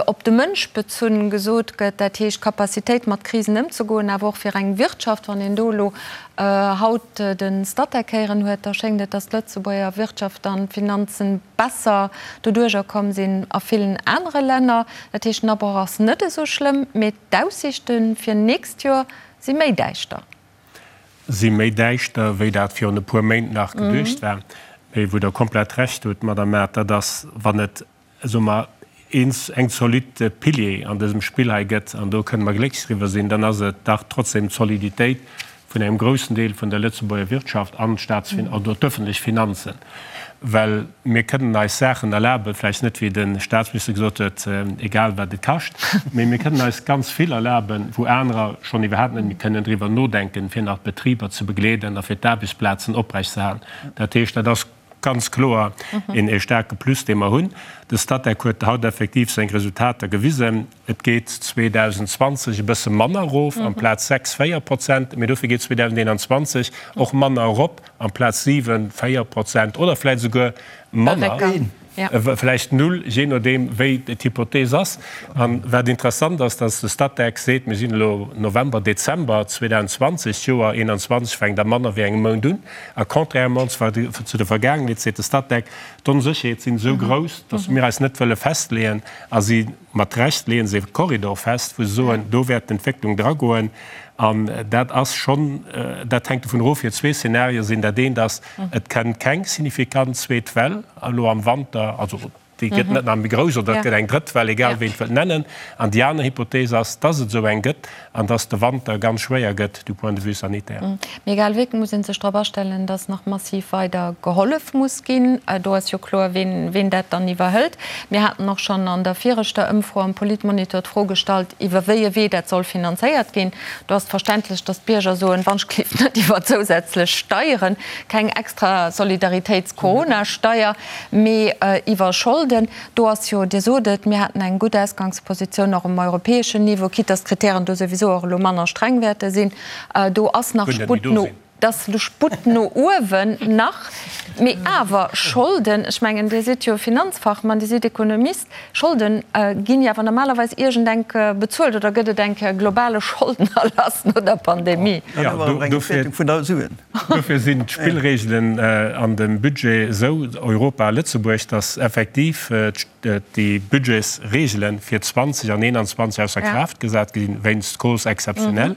op de Mënsch bezunn gesot gëtt, dat heescht d'Capacitéit mat Krisen ëmzegoen, awer och fir eng Wirtschaft. Wann een do elo haut de Statec héieren huet, da schéngt et, datt d'Lëtzebuerger Wirtschaft an d'Finanzen besser doduerjer komm sinn a villen anere Länner. Dat heescht, den Abroch ass net esou schlëmm, mee d'Aussiichte fir nächst Joer si méi däischter. Si méi däischter, wéi dat virun e puer Méint nach geduecht war. Mee wou Der komplett Recht hutt, Madamm Mart, dat ass, wann et, soe mer, eens eng zolidd Pilier an dësem Spill hei gëtt, an do kënne mer glécklech driwwer sinn, dann ass et dach trotzdem d'Soliditéit vun engem groussen Deel vun der Lëtzebuerger Wirtschaft an d'Staatsfin oder d'öffentlech Finanzen. Well mir kënnen eis Saachen erlaben, vläicht net, wéi de Statsminister gesot huet, egal wat et kascht, mee mir kënnen eis ganz vill erlaben, wou anerer schonn iwwerhaapt net méi kënnen driwwer nodenken, fir nach d'Betriber ze begleeden a fir d'Aarbechtsplazen oprechtzeerhalen. Dat heescht, dat ass ganz kloer een staarke Plus, dee mer hunn. De Statec huet haut effektiv seng Resultater gewisen. Et geet 2020 e bësse manner erof, amplaz 6, 4 Prozent, mee dofir geet 2021 och manner erop, amplaz 7, 4 Prozent oder vläicht esouguer manner, vläicht null, jee nodeem wéi d'Hypothees ass. A wat interessant ass, dass de Statec seet, mir sinn elo November, Dezember 2020, d'Joer 2021 fänkt a manner wéi engem Mount un, a contrairement zu der Vergaangenheet seet de Statec, d'Onsécherheet sinn esou grouss, dass mir eis net wëlle festleeën a si Mat Recht leeën se e Korridor fest, wou se soen, do wäert d'Entwécklung dragoen. An dat ass schonn, dat hänkt dovun erof, jo zwee Szenarien sinn. Dat eent ass, et kënnt keng signifikant zweet Well elo am Wanter, also déi gëtt net nach méi grouss, oder et gëtt eng drëtt Well, egal wéi een et wëllt nennen. An déi aner Hypothees ass, dass et esou eng gëtt an dass de Wanter ganz schwéier gëtt du point de vue sanitaire. Mee egal wéi, et muss ee sech drop astellen, dass nach massiv weider gehollef muss ginn. Do ass jo kloer, ween, ween dat dann iwwerhëlt. Mir haten och schonn an der viregter Ëmfro am Politmonitor d'Fro gestallt, iwwer wéi e Wee dat soll finanzéiert ginn. Do ass et verständlech, dass d'Bierger soen, Wann-ech-gleeft net iwwer zousätzlech Steieren, keng extra Solidaritéits-Corona-Steier, mee iwwer Scholden. Do ass jo, Dir sot et, mir haten eng gutt Ausgangspositioun och um europäeschen Niveau, quitte dass d'Kritären do souwisou och elo manner streng wäerte sinn. Do ass nach Sputt no. Et ass elo Sputt no uewen nach, mee awer Scholden, ech mengen, Dir sidd jo Finanzfachmann, Dir sidd Ekonomist, Scholden ginn jo awer normalerweis iergendenk bezuelt oder gëtt et eng Kéier e globale Scholdenerlass no der Pandemie? Dofir sinn d'Spillregelen an dem Budget esou, Europa a Lëtzebuerg, datt effektiv déi Budgetsregele fir 20 an 21 ausser Kraaft gesat ginn, wéinst Causes exceptionnelles.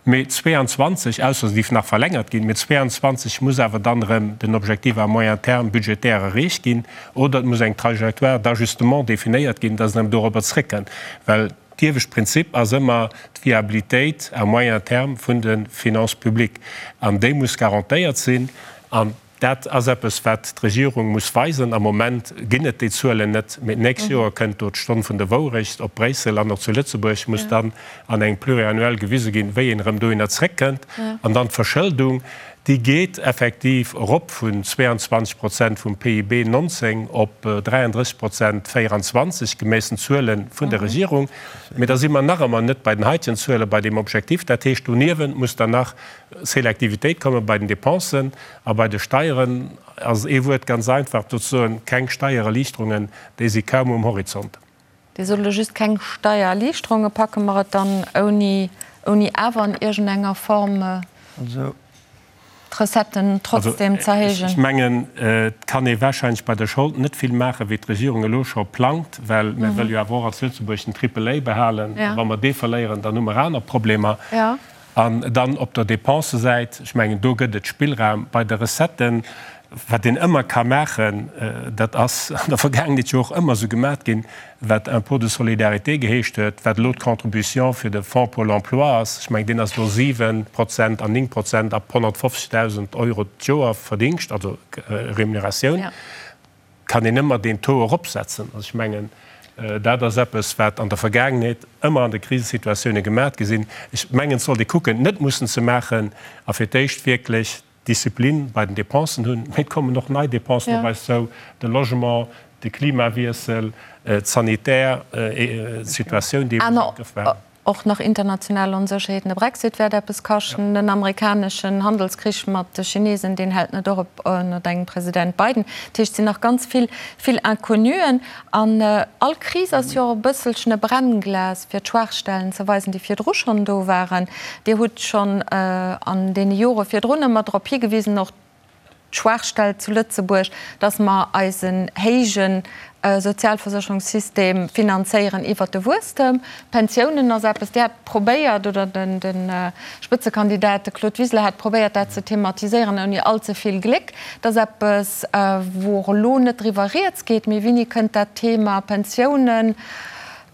Mee 22, ausser se géif nach verlängert ginn, mee 22 muss awer dann erëm den Objectif à moyen terme budgétaire erreecht ginn oder et muss eng Trajectoire d'ajustement definéiert ginn, dass een erëm dorobber zréckkënnt. Well d'iewescht Prinzip ass ëmmer d'Viabilitéit à moyen terme vun de Finances publiques an déi muss garantéiert sinn. An Dat ass eppes, wat d'Regierung muss weisen. Am Moment ginn et déi Zuelen net, mee d'nächst Joer kënnt do d'Stonn vun der Wourecht. Op Bréissel an och zu Lëtzebuerg muss dann an engem Pluriannuel gewise ginn, wéi een erëm dohinner zréckkënnt. An dann d'Verschëldung, déi geet effektiv erop vun 22 Prozent vum PIB 19 op 33 Prozent 24, gemäss den Zuele vun der Regierung. Mee da si mer nach ëmmer net bei den heitegen Zuelen, bei deem Objektiv. Dat heescht, doniewent muss dann nach Selektivitéit komme bei den Dépensen a bei de Steieren ass ee Wuert ganz einfach do ze soen, keng Steiererliichterungen, déi si kaum um Horizont. Dir sot elo just keng Steiererliichterungen. Packe mer et dann ouni, ouni awer an iergendenger Form d'Recetten trotzdem z'erhéijen? Ech mengen, et kann ee wahrscheinlech bei der Schold net vill maachen, wéi d'Regierung elo scho plangt, well mir wëlle jo awer och als Lëtzebuerg den Triple A behalen. A wa mer dee verléieren, dann hu mer aner Problemer. An dann op der Dépensesäit, ech mengen, do gëtt et Spillraum. Bei de Recetten, wat een ëmmer ka maachen, dat ass an der Vergaangenheet jo och ëmmer esou gemat ginn, wat Impôt de solidarité geheescht huet, wat elo d'Contribution fir de Fonds pour l'emploi ass, ech mengen, deen ass elo 7 Prozent an 9 Prozent ab 150.000 Euro d'Joer Verdingscht, also Remuneratioun. Kann een ëmmer deen Taux eropsetzen. Also ech mengen, dat ass eppes, wat an der Vergaangenheet ëmmer an de Krisesituatioune gemat gi sinn. Ech mengen, et sollt ee kucken, et net mussen ze maachen a fir d'éischt wierklech Disziplin bei den Dépensen hunn. Mee et kommen och nei Dépensen op eis zou, de Logement, de Klimawiessel, d'sanitär Situatioun, déi ee muss am Grëff behalen. Och nach international Onsécherheeten, de Brexit wäert eppes kaschten, den amerikaneschen Handelskrich mat de Chinesen, deen hält net och op ënnert engem President Biden. Dat heescht, et sinn nach ganz vill, vill Inconnuen. An all Kris ass jo och e bësselchen e Brennglas, fir d'Schwaachstellen ze weisen, déi virdru schonn do waren. Dir hutt schonn an deene Jore virdrun ëmmer drop higewisen, och d'Schwaachstell zu Lëtzebuerg, dass mer eisen héije Sozialversécherungssystem finanzéieren iwwert de Wuesstem. D'Pensiounen ass eppes, Dir hat probéiert, oder de Spëtzekandidat, de Claude Wiseler, hat probéiert, dat ze thematiséieren, ouni all ze vill Gléck. Dat ass eppes, wou och elo net driwwer rieds geet. Mee wéini kënnt dat Thema Pensiounen,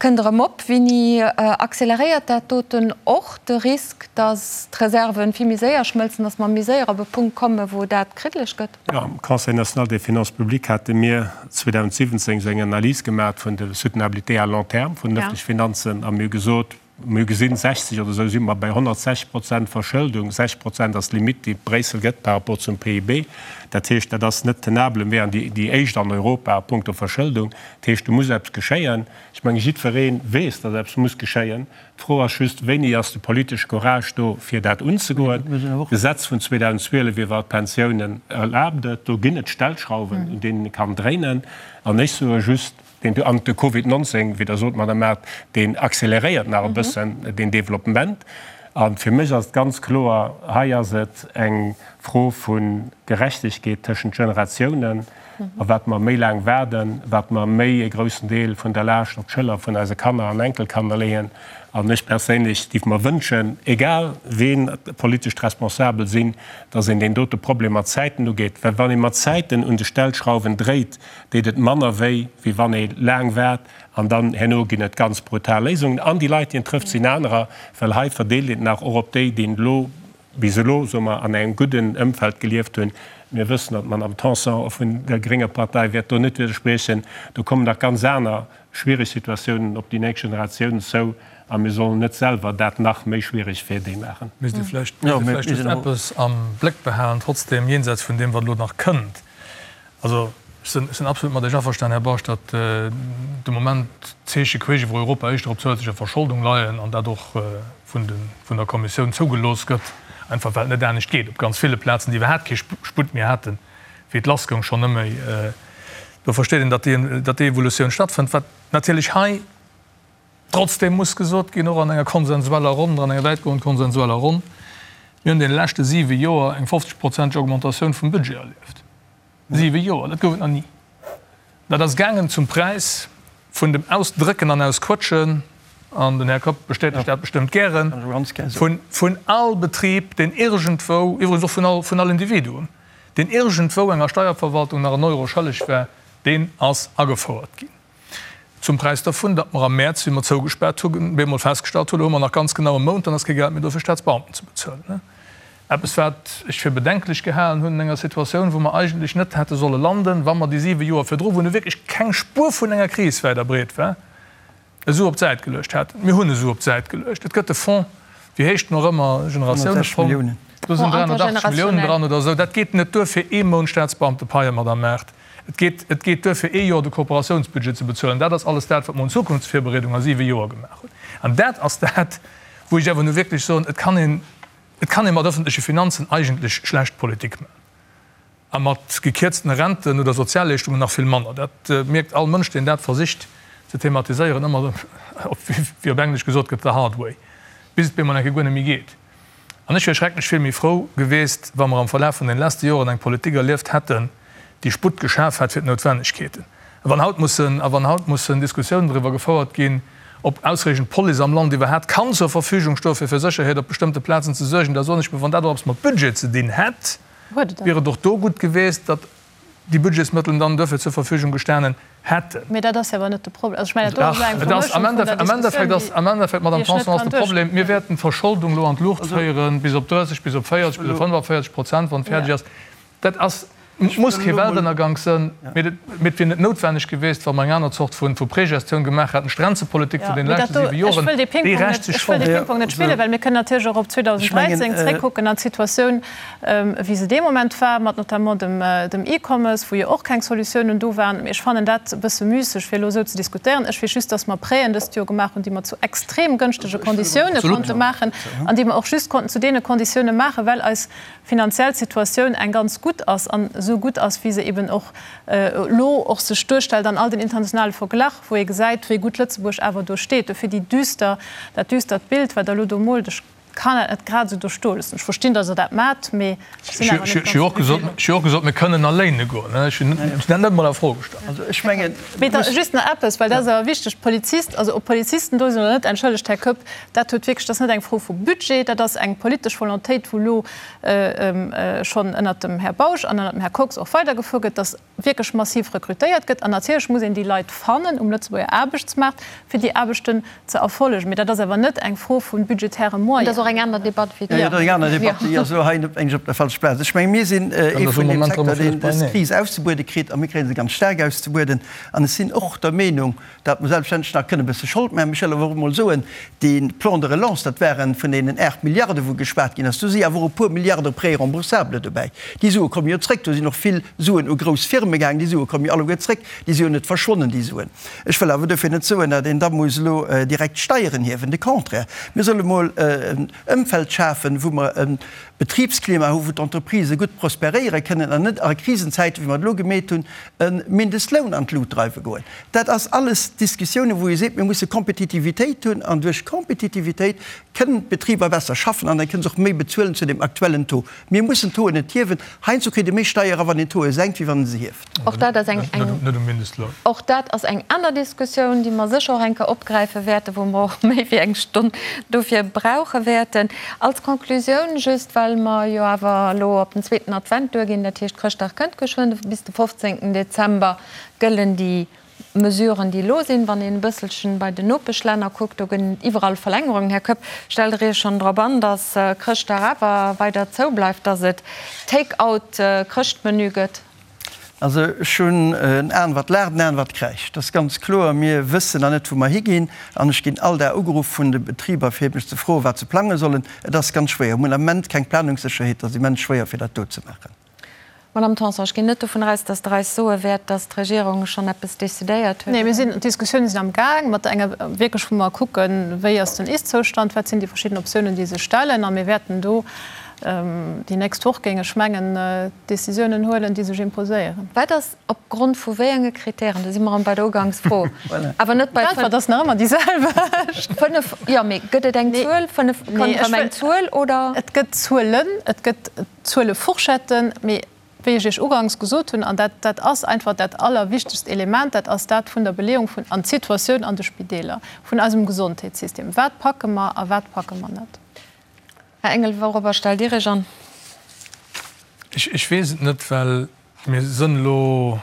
kënnt erëm op? Wéini acceleréiert dat doten och de Risk, datt d'Reserven vill méi séier schmëlzen, datt mer méi séier op e Punkt kommen, wou dat kriddeleg gëtt? Jo, am Conseil national des finances publiques hate mir 2017 esou eng Analys gemaach vun der Soutenabilité à long terme vun den öffentleche Finanzen a mir hu gesot, mir hu gesinn, 60 oder esou si mer bei 160 Prozent Verschëldung, 60 Prozent ass d'Limitt, déi Bréissel gëtt par rapport zum PIB. Dat heescht, dat ass net tenable. Mir wären déi éischt an Europa a puncto Verschëldung. Dat heescht, do muss eppes geschéien. Ech menge jiddweree weess, datt eppes muss geschéien. D'Fro ass just, Wéini ass de politesche Courage do, fir dat unzegoen? D'Gesetz vun 2012 iwwer d'Pensiounen erlaabt et. Do ginn et Stellschrauwen, un deenen ee kann dréinen. An ech soe just, deen do, an de Covid 19, wéi Der sot, Madame Mart, deen acceleréiert nach e bëssen deen Développement. A fir mech ass et ganz kloer, hei ass et eng Fro vu Gerechtegkeet tëschent Generatiounen. A wat mer méi laang waarden, wat mer méi e groussen Deel vun der Laascht op d'Schëller vun eise Kanner an Enkelkanner leeën. An ech perséinlech géif mer wënschen, egal ween politesch d'Responsabel sinn, dass een deen dote Problem mat Zäiten ugeet. Well wann ee mat Zäiten un de Stellschrauwen dréit, deet et manner wéi, wéi wann ee laang waart an dann herno ginn et ganz brutal Léisungen. An déi Leit, déi en trëfft, sinn anerer, well hei verdeelt een nach och op déi, déi elo bis elo, soe mer, an engem gudden Ëmfeld gelieft hunn. Mir wëssen, datt d'Madame Tanson vun der grénger Partei wäert do net widderspriechen. Do kommen nach ganz aner schwiereg Situatiounen op déi nächst Generatiounen zou a mir sollen net selwer dat nach méi schwiereg fir déi maachen. Misst ee vläicht just eppes am Bléck behalen, trotzdem, jenseits vun deem, wat elo nach kënnt. Also, ech sinn, ech sinn absolut mat Iech averstanen, Här Bausch, datt de Moment d'Zeeche queesch iwwer Europa éischter op zousätzlecher Verscholdung leien an dat och vun de, vun der Kommissioun zougelooss gëtt. Einfach well et net anescht geet. Op ganz ville Plazen, déi iwwerhaapt kee Sputt méi haten, wéi et lassgoung, schonn net méi. Do versteet een, datt déi, datt déi Evolutioun stattfënnt. Wat natierlech hei trotzdem muss gesot ginn, och an enger konsensueller Ronn, an enger wäitgoend konsensueller Ronn, Mir hunn deene leschte siwe Joer eng 50-prozenteg Augmentatioun vum Budget erlieft. Siwe Joer, dat gouf et nach ni. Dat ass gaangen zum Präis vun dem Ausdrécken an Ausquëtschen, an den Här Kopp bestätegt dat bestëmmt gären, vun all Betrib, deen iergendwou, iwwregens och vun all, vun all Individuum, deen iergendwou enger Steierverwaltung nach en Euro schëlleg war, deen ass agefouert ginn. Zum Präis dervun, datt mer am Mäerz, wéi mer zougespaart hunn, bemol festgestallt hunn, elo hu mer nach ganz genau e Mount, dann ass kee Geld méi do fir Staatsbeamten ze bezuelen. Eppes, wat ech fir bedenklech gehalen hunn an enger Situatioun, wou mer eigentlech net hätte solle landen, wa mer déi siwe Joer virdru, wou nu wierklech keng Spuer vun enger Kris wäit a breet war, e Su op d'Säit geluecht hätten. Mir hunn e Su op d'Säit geluecht. Et gëtt e Fonds, wéi heescht en och ëmmer, Generatiounefonds, do sinn 380 Milliounen dran oder esou. Dat geet net duer fir ee Mount Staatsbeamtepaie, Madame Mart. Et geet, et geet duer fir ee Joer de Kooperatiounsbudget ze bezuelen. Dat ass alles dat, wat mer un Zukunftsvirbereedung a siwe Joer gemaach hunn. An dat ass dat, wou ech awer nu wierklech soen, et kann een, et kann ee mat öffentleche Finanzen eigentlech schlecht Politik maachen. A mat gekierztene Renten oder Sozialleeschtungen nach vill manner. Dat mierkt all Mënsch, deen dat versicht ze thematiséieren, ëmmer, wéi op Englesch gesot gëtt, the hard way, bis et bemol eng Kéier guer net méi geet. An ech wier schrecklech vill méi frou geweest, wa mer am Verlaf vun den lesste Joren eng Politik erlieft hätten, déi Sputt geschaf hätt fir d'Noutwennegkeeten. A wann haut mussen, a wann haut mussen Diskussiounen driwwer gefouert ginn, ob ausreechend Police am Land iwwerhaapt kann zur Verfügung stoen, fir fir Sécherheet op bestëmmte Plazen ze suergen, da soen ech mir, wann dat och eppes mat Budget ze dinn hätt, wier et och do gutt geweest, datt déi Budgetsmëttelen dann duerfir zur Verfügung gestanen hätten. Mee dat ass jo awer net de Problem. Also ech mengen, dat do ass elo eng Vermëschung vun der Diskussioun, déi Am Endeffekt, Madame Tanson, ass de Problem, mir wäerten d'Verscholdung elo an d'Luucht féieren, bis op 30, bis op 40, bis op 45 Prozent, wann et fäerdeg ass. Dat ass, muss kee Weltënnergank sënn, mee et wier net noutwenneg geweest, wa mer eng aner Zort vu Pregestioun gemaach hätten. D'Grenzepolitik vun deene leschte siwe Joren, déi rächt sech schonn. Ech wëll dee Pingpong net spillen, well mir kënnen natierlech och op 2013 zréckkucken an d'Situatioun, wéi se dee Moment war, mat notamment dem E-Commerce, wou jo och keng Solutiounen do waren. Mee ech fannen dat e bësse müsseg, fir elo esou ze diskutéieren. Ech weess just, dass mer Prêten dëst Joer gemaach hunn, déi mer zu extrem gënschtege Konditioune konnte maachen an déi mer och just konnten zu deene Konditioune maachen, well eis finanziell Situatioun eng ganz gutt ass an esou gutt ass, wéi se eben och elo och sech duerstellt an all den internationale Verglach, wou ee gesäit, wéi gutt Lëtzebuerg awer do steet. Dofir déi düster, dat düstert Bild, wat Der elo do moolt, ech Kann dat net grad esou do stoe loossen. Ech verstinn, datt Der dat maacht, mee ech sinn awer net ganz Ech hu jo och gesot, mir kënnen a léine goen. Ech hunn dat net emol a Fro gestallt. Also ech mengen. Mee da just nach eppes, well dat ass awer wichteg, D'Polizist, also ob Polizisten do sinn oder net, entschëllegt, Här Koepp, dat huet wierklech, dat ass net eng Fro vu Budget, dat ass eng politesch Volontéit, wou elo schonn ënnert dem Här Bausch an ënnert dem Här Kox och weidergefuer gëtt, datt wierklech massiv rekrutéiert gëtt. An natierlech muss een déi Leit fannen um Lëtzebuerger Aarbechtsmaart, fir déi Aarbechten ze erfollegen. Mee dat ass awer net eng Fro vu budgetäre Moyenen. Dat ass och eng aner Debatt wéi déi. Jo, dat ass eng aner Debatt, déi ass elo hei net eng op der falscher Plaz. Ech menge mir sinn ee vun deem Secteur, deen dës Kris auszebuede kritt, a mir kréie se ganz staark auszebueden. An ech sinn och der Meenung, datt mer selbstverständlech nach kënne e bësse Schold maachen. Ech wëll awer och emol soen, dee Plan de relance, dat ware vun deenen 8 Milliarde wou geschwat ginn ass, do si awer och e puer Milliarde Prêts remboursables dobäi. Déi Sue komme jo zréck. Do sinn och vill Suen u grouss Firme gaangen. Déi Sue komme jo alleguer zréck. Déi si jo net verschwonnen, déi Suen. Ech wëll awer duerfir net soen, datt een da muss elo direkt d'Steieren hiewen. De Contraire, mir solle mol en Ëmfeld schafen, wou mer e Betribsklima hu wou d'Entreprisë gutt prosperéiere kënnen an net a Krisenzäiten, wéi mer et elo gemeet hunn, e Mindestloun an d'Lut dreiwe goen. Dat ass alles Diskussiounen, wou ee seet, mir musse Kompetitivitéit hunn an duerch Kompetitivitéit kënnen d'Betriber besser schaffen an da kënnen se och méi bezuelen zu dem aktuellen Taux. Mir mussen d'Tauxen net hiewen. Heiansdo kritt ee méi Steier era wann een d'Tauxe senkt, wéi wann ee se hieft. Och dat ass eng, och dat ass eng aner Diskussioun, déi mer sécher och eng Kéier opgräife wäerten, wou mer och méi wéi eng Stonn dofir brauche wäerten. Als Konklusioun just, well mer jo awer elo op den zweeten Advent duerginn, dat heescht Chrëschtdag kënnt geschwënn, bis de 15. Dezember gëllen déi Mesuren, déi elo sinn. Wann een e bësselchen bei den Nopeschlänner kuckt, do gëtt et iwwerall Verlängerungen. Här Koepp, stellt Der Iech schonn drop an, datt Chrëschtdag awer weider zou bleift, datt et Take-out-Chrëschtmenü gëtt? Also ech hunn en Aen wat laacht, en Aen wat kräischt. Dat ass ganz kloer. Mir wëssen nach net, wou mer higinn. An ech ginn all Dag ugeruff vun de Betriber, fir mech ze froen, wat se plange sollen. Et ass ganz schwéier. Mir hunn am Ament keng Planungssécherheet. Et ass immens schwéier, fir dat do ze maachen. Madame Tanson, ech ginn net dovun aus, datt Der eis soe wäert, datt d'Regierung schonn eppes decidéiert huet. Nee, mir sinn, d'Diskussiounen sinn am Gaang, mat enger wierklech, wou mer kucken, wéi ass den Ist-Zoustand, wat sinn déi verschidden Optiounen, déi sech stellen. A mir wäerten do. Déi nächst Woch géing ech mengen, Décisiounen huelen, déi sech imposéieren. Wat ass op Grond vu wéi enge Kritären, do si mer erëm bei der Ugangsfro, awer net bei. D'Äntwert ass nach ëmmer déi selwecht. 5, jo, mee gëtt et eng Zuel? 5, kommt erëm eng Zuel, oder? Et gëtt Zuelen, et gëtt Zuelefourchetten, mee wéi ech Iech uganks gesot hunn, an dat, dat ass einfach dat allerwichtegst Element, dat ass dat vun der Beleeung vun, an d'Situatioun an de Spideeler, vun eisem Gesondheetssystem. Wat packe mer a wat packe mer net? Här Engel, wourobber stellt Dir Iech an? Ech weess et net, well mir sënn elo,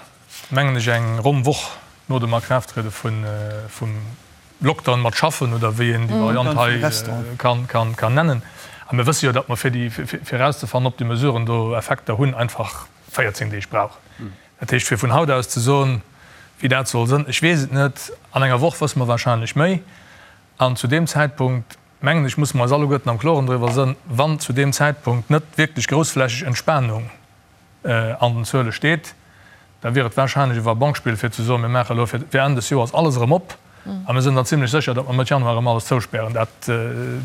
mengen ech, eng ronn Woch no dem Akraafttriede vum Lockdown mat schaffen, oder wéi een déi Variant hei kann nennen. A mir wësse jo, datt mer fir déi, fir erauszefannen, ob déi Mesuren do Effekter hunn, einfach 14 Deeg brauchen. Dat heescht, fir vun haut aus ze soen, wéi dat soll sënn, ech weess et net. An enger Woch wësse mer wahrscheinlech méi. An zu deem Zäitpunkt, mengen ech, musse mer eis alleguerten am Kloren driwwer sënn, wann zu deem Zäitpunkt net wierklech groussflächeg Entspanung an den Zuele steet, da wier et wahrscheinlech e Va-banque-Spill fir ze soen, mir maache elo fir Enn des Joers alles erëm op a mir sinn dann zimlech sécher, datt mer Mëtt Januar erëm alles zouspären. Dat,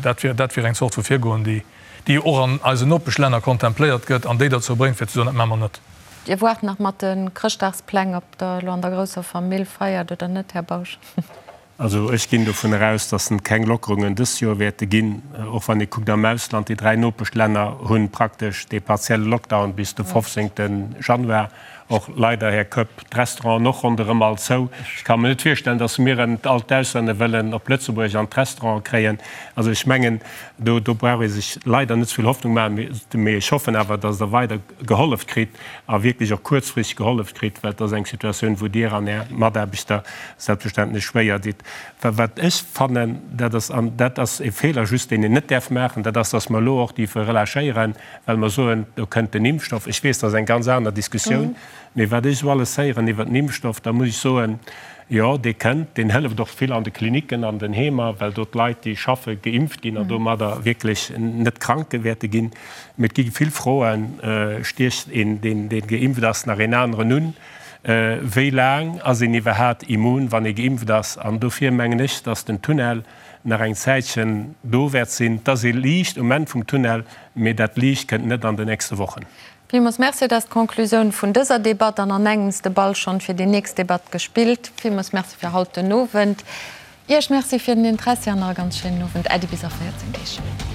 dat wier, dat wier eng Zort vu Virgoen, déi, déi jo och an eisen Nopeschlänner kontempléiert gëtt an déi derzou bréngt fir ze soen, dat maache mer net. Dir waart nach mat de Chrëschtdagspläng, ob Der elo an der grousser Famill feiert oder net, Här Bausch. Also ech ginn dovun eraus, datt et keng Lockerungen dëst Joer wäerte ginn. Och wann ee kuckt am Ausland, déi 3 Nopeschlänner hu praktesch dee partielle Lockdown bis de 15. Januar. Och leider, Här Koepp, d'Restauranten och ronderëm all zou. Ech ka mer net virstellen, datt mir erëm all d'Auslänner wëllen op Lëtzebuerg an d'Restauranten kréien. Also ech mengen, do brauch ee sech leider net ze vill Hoffnung maachen. Mee ech hoffen awer, datt Der weider gehollef kritt a wierklech och kuerzfristeg gehollef kritt, well et ass eng Situatioun, wou Dir an Är Mataarbechter selbstverständlech schwéier ditt. Wat ech fannen, dat ass, an dat ass e Feeler just, deen een net däerf maachen, dat ass, dass mer elo och dierfe relâchéieren, well mer soen, do kënnt den Impfstoff. Ech weess, dat ass eng ganz aner Diskussioun, mee wat ech esou alles héieren iwwert den Impfstoff, da muss ech soen, Jo, dee kënnt. Deen hëlleft och vill an de Klinicken, an den Heemer, well do d'Leit, déi schaffe, geimpft ginn an domadder wierklech net krank wäerte ginn. Mee et gi vill Froen, Stiecht een, deen geimpft ass, nach een aneren un? Wéi laang ass een iwwerhaat immun, wann ee geimpft ass? An dofir mengen ech, datt den Tunnel nach eng Zäitchen do wäert sinn. Et ass ee Liicht um Enn vum Tunnel, mee dat Liicht kënnt net an den nächste Wochen. Villmools Merci. Dat ass d'Conclusioun vun dëser Debatt an an engems de Ball schonn fir déi nächst Debatt gespillt. Villmools Merci fir haut den Owend. Iech Merci fir den Interessi an nach e ganz schéinen Owend. Äddi bis a 14 Deeg.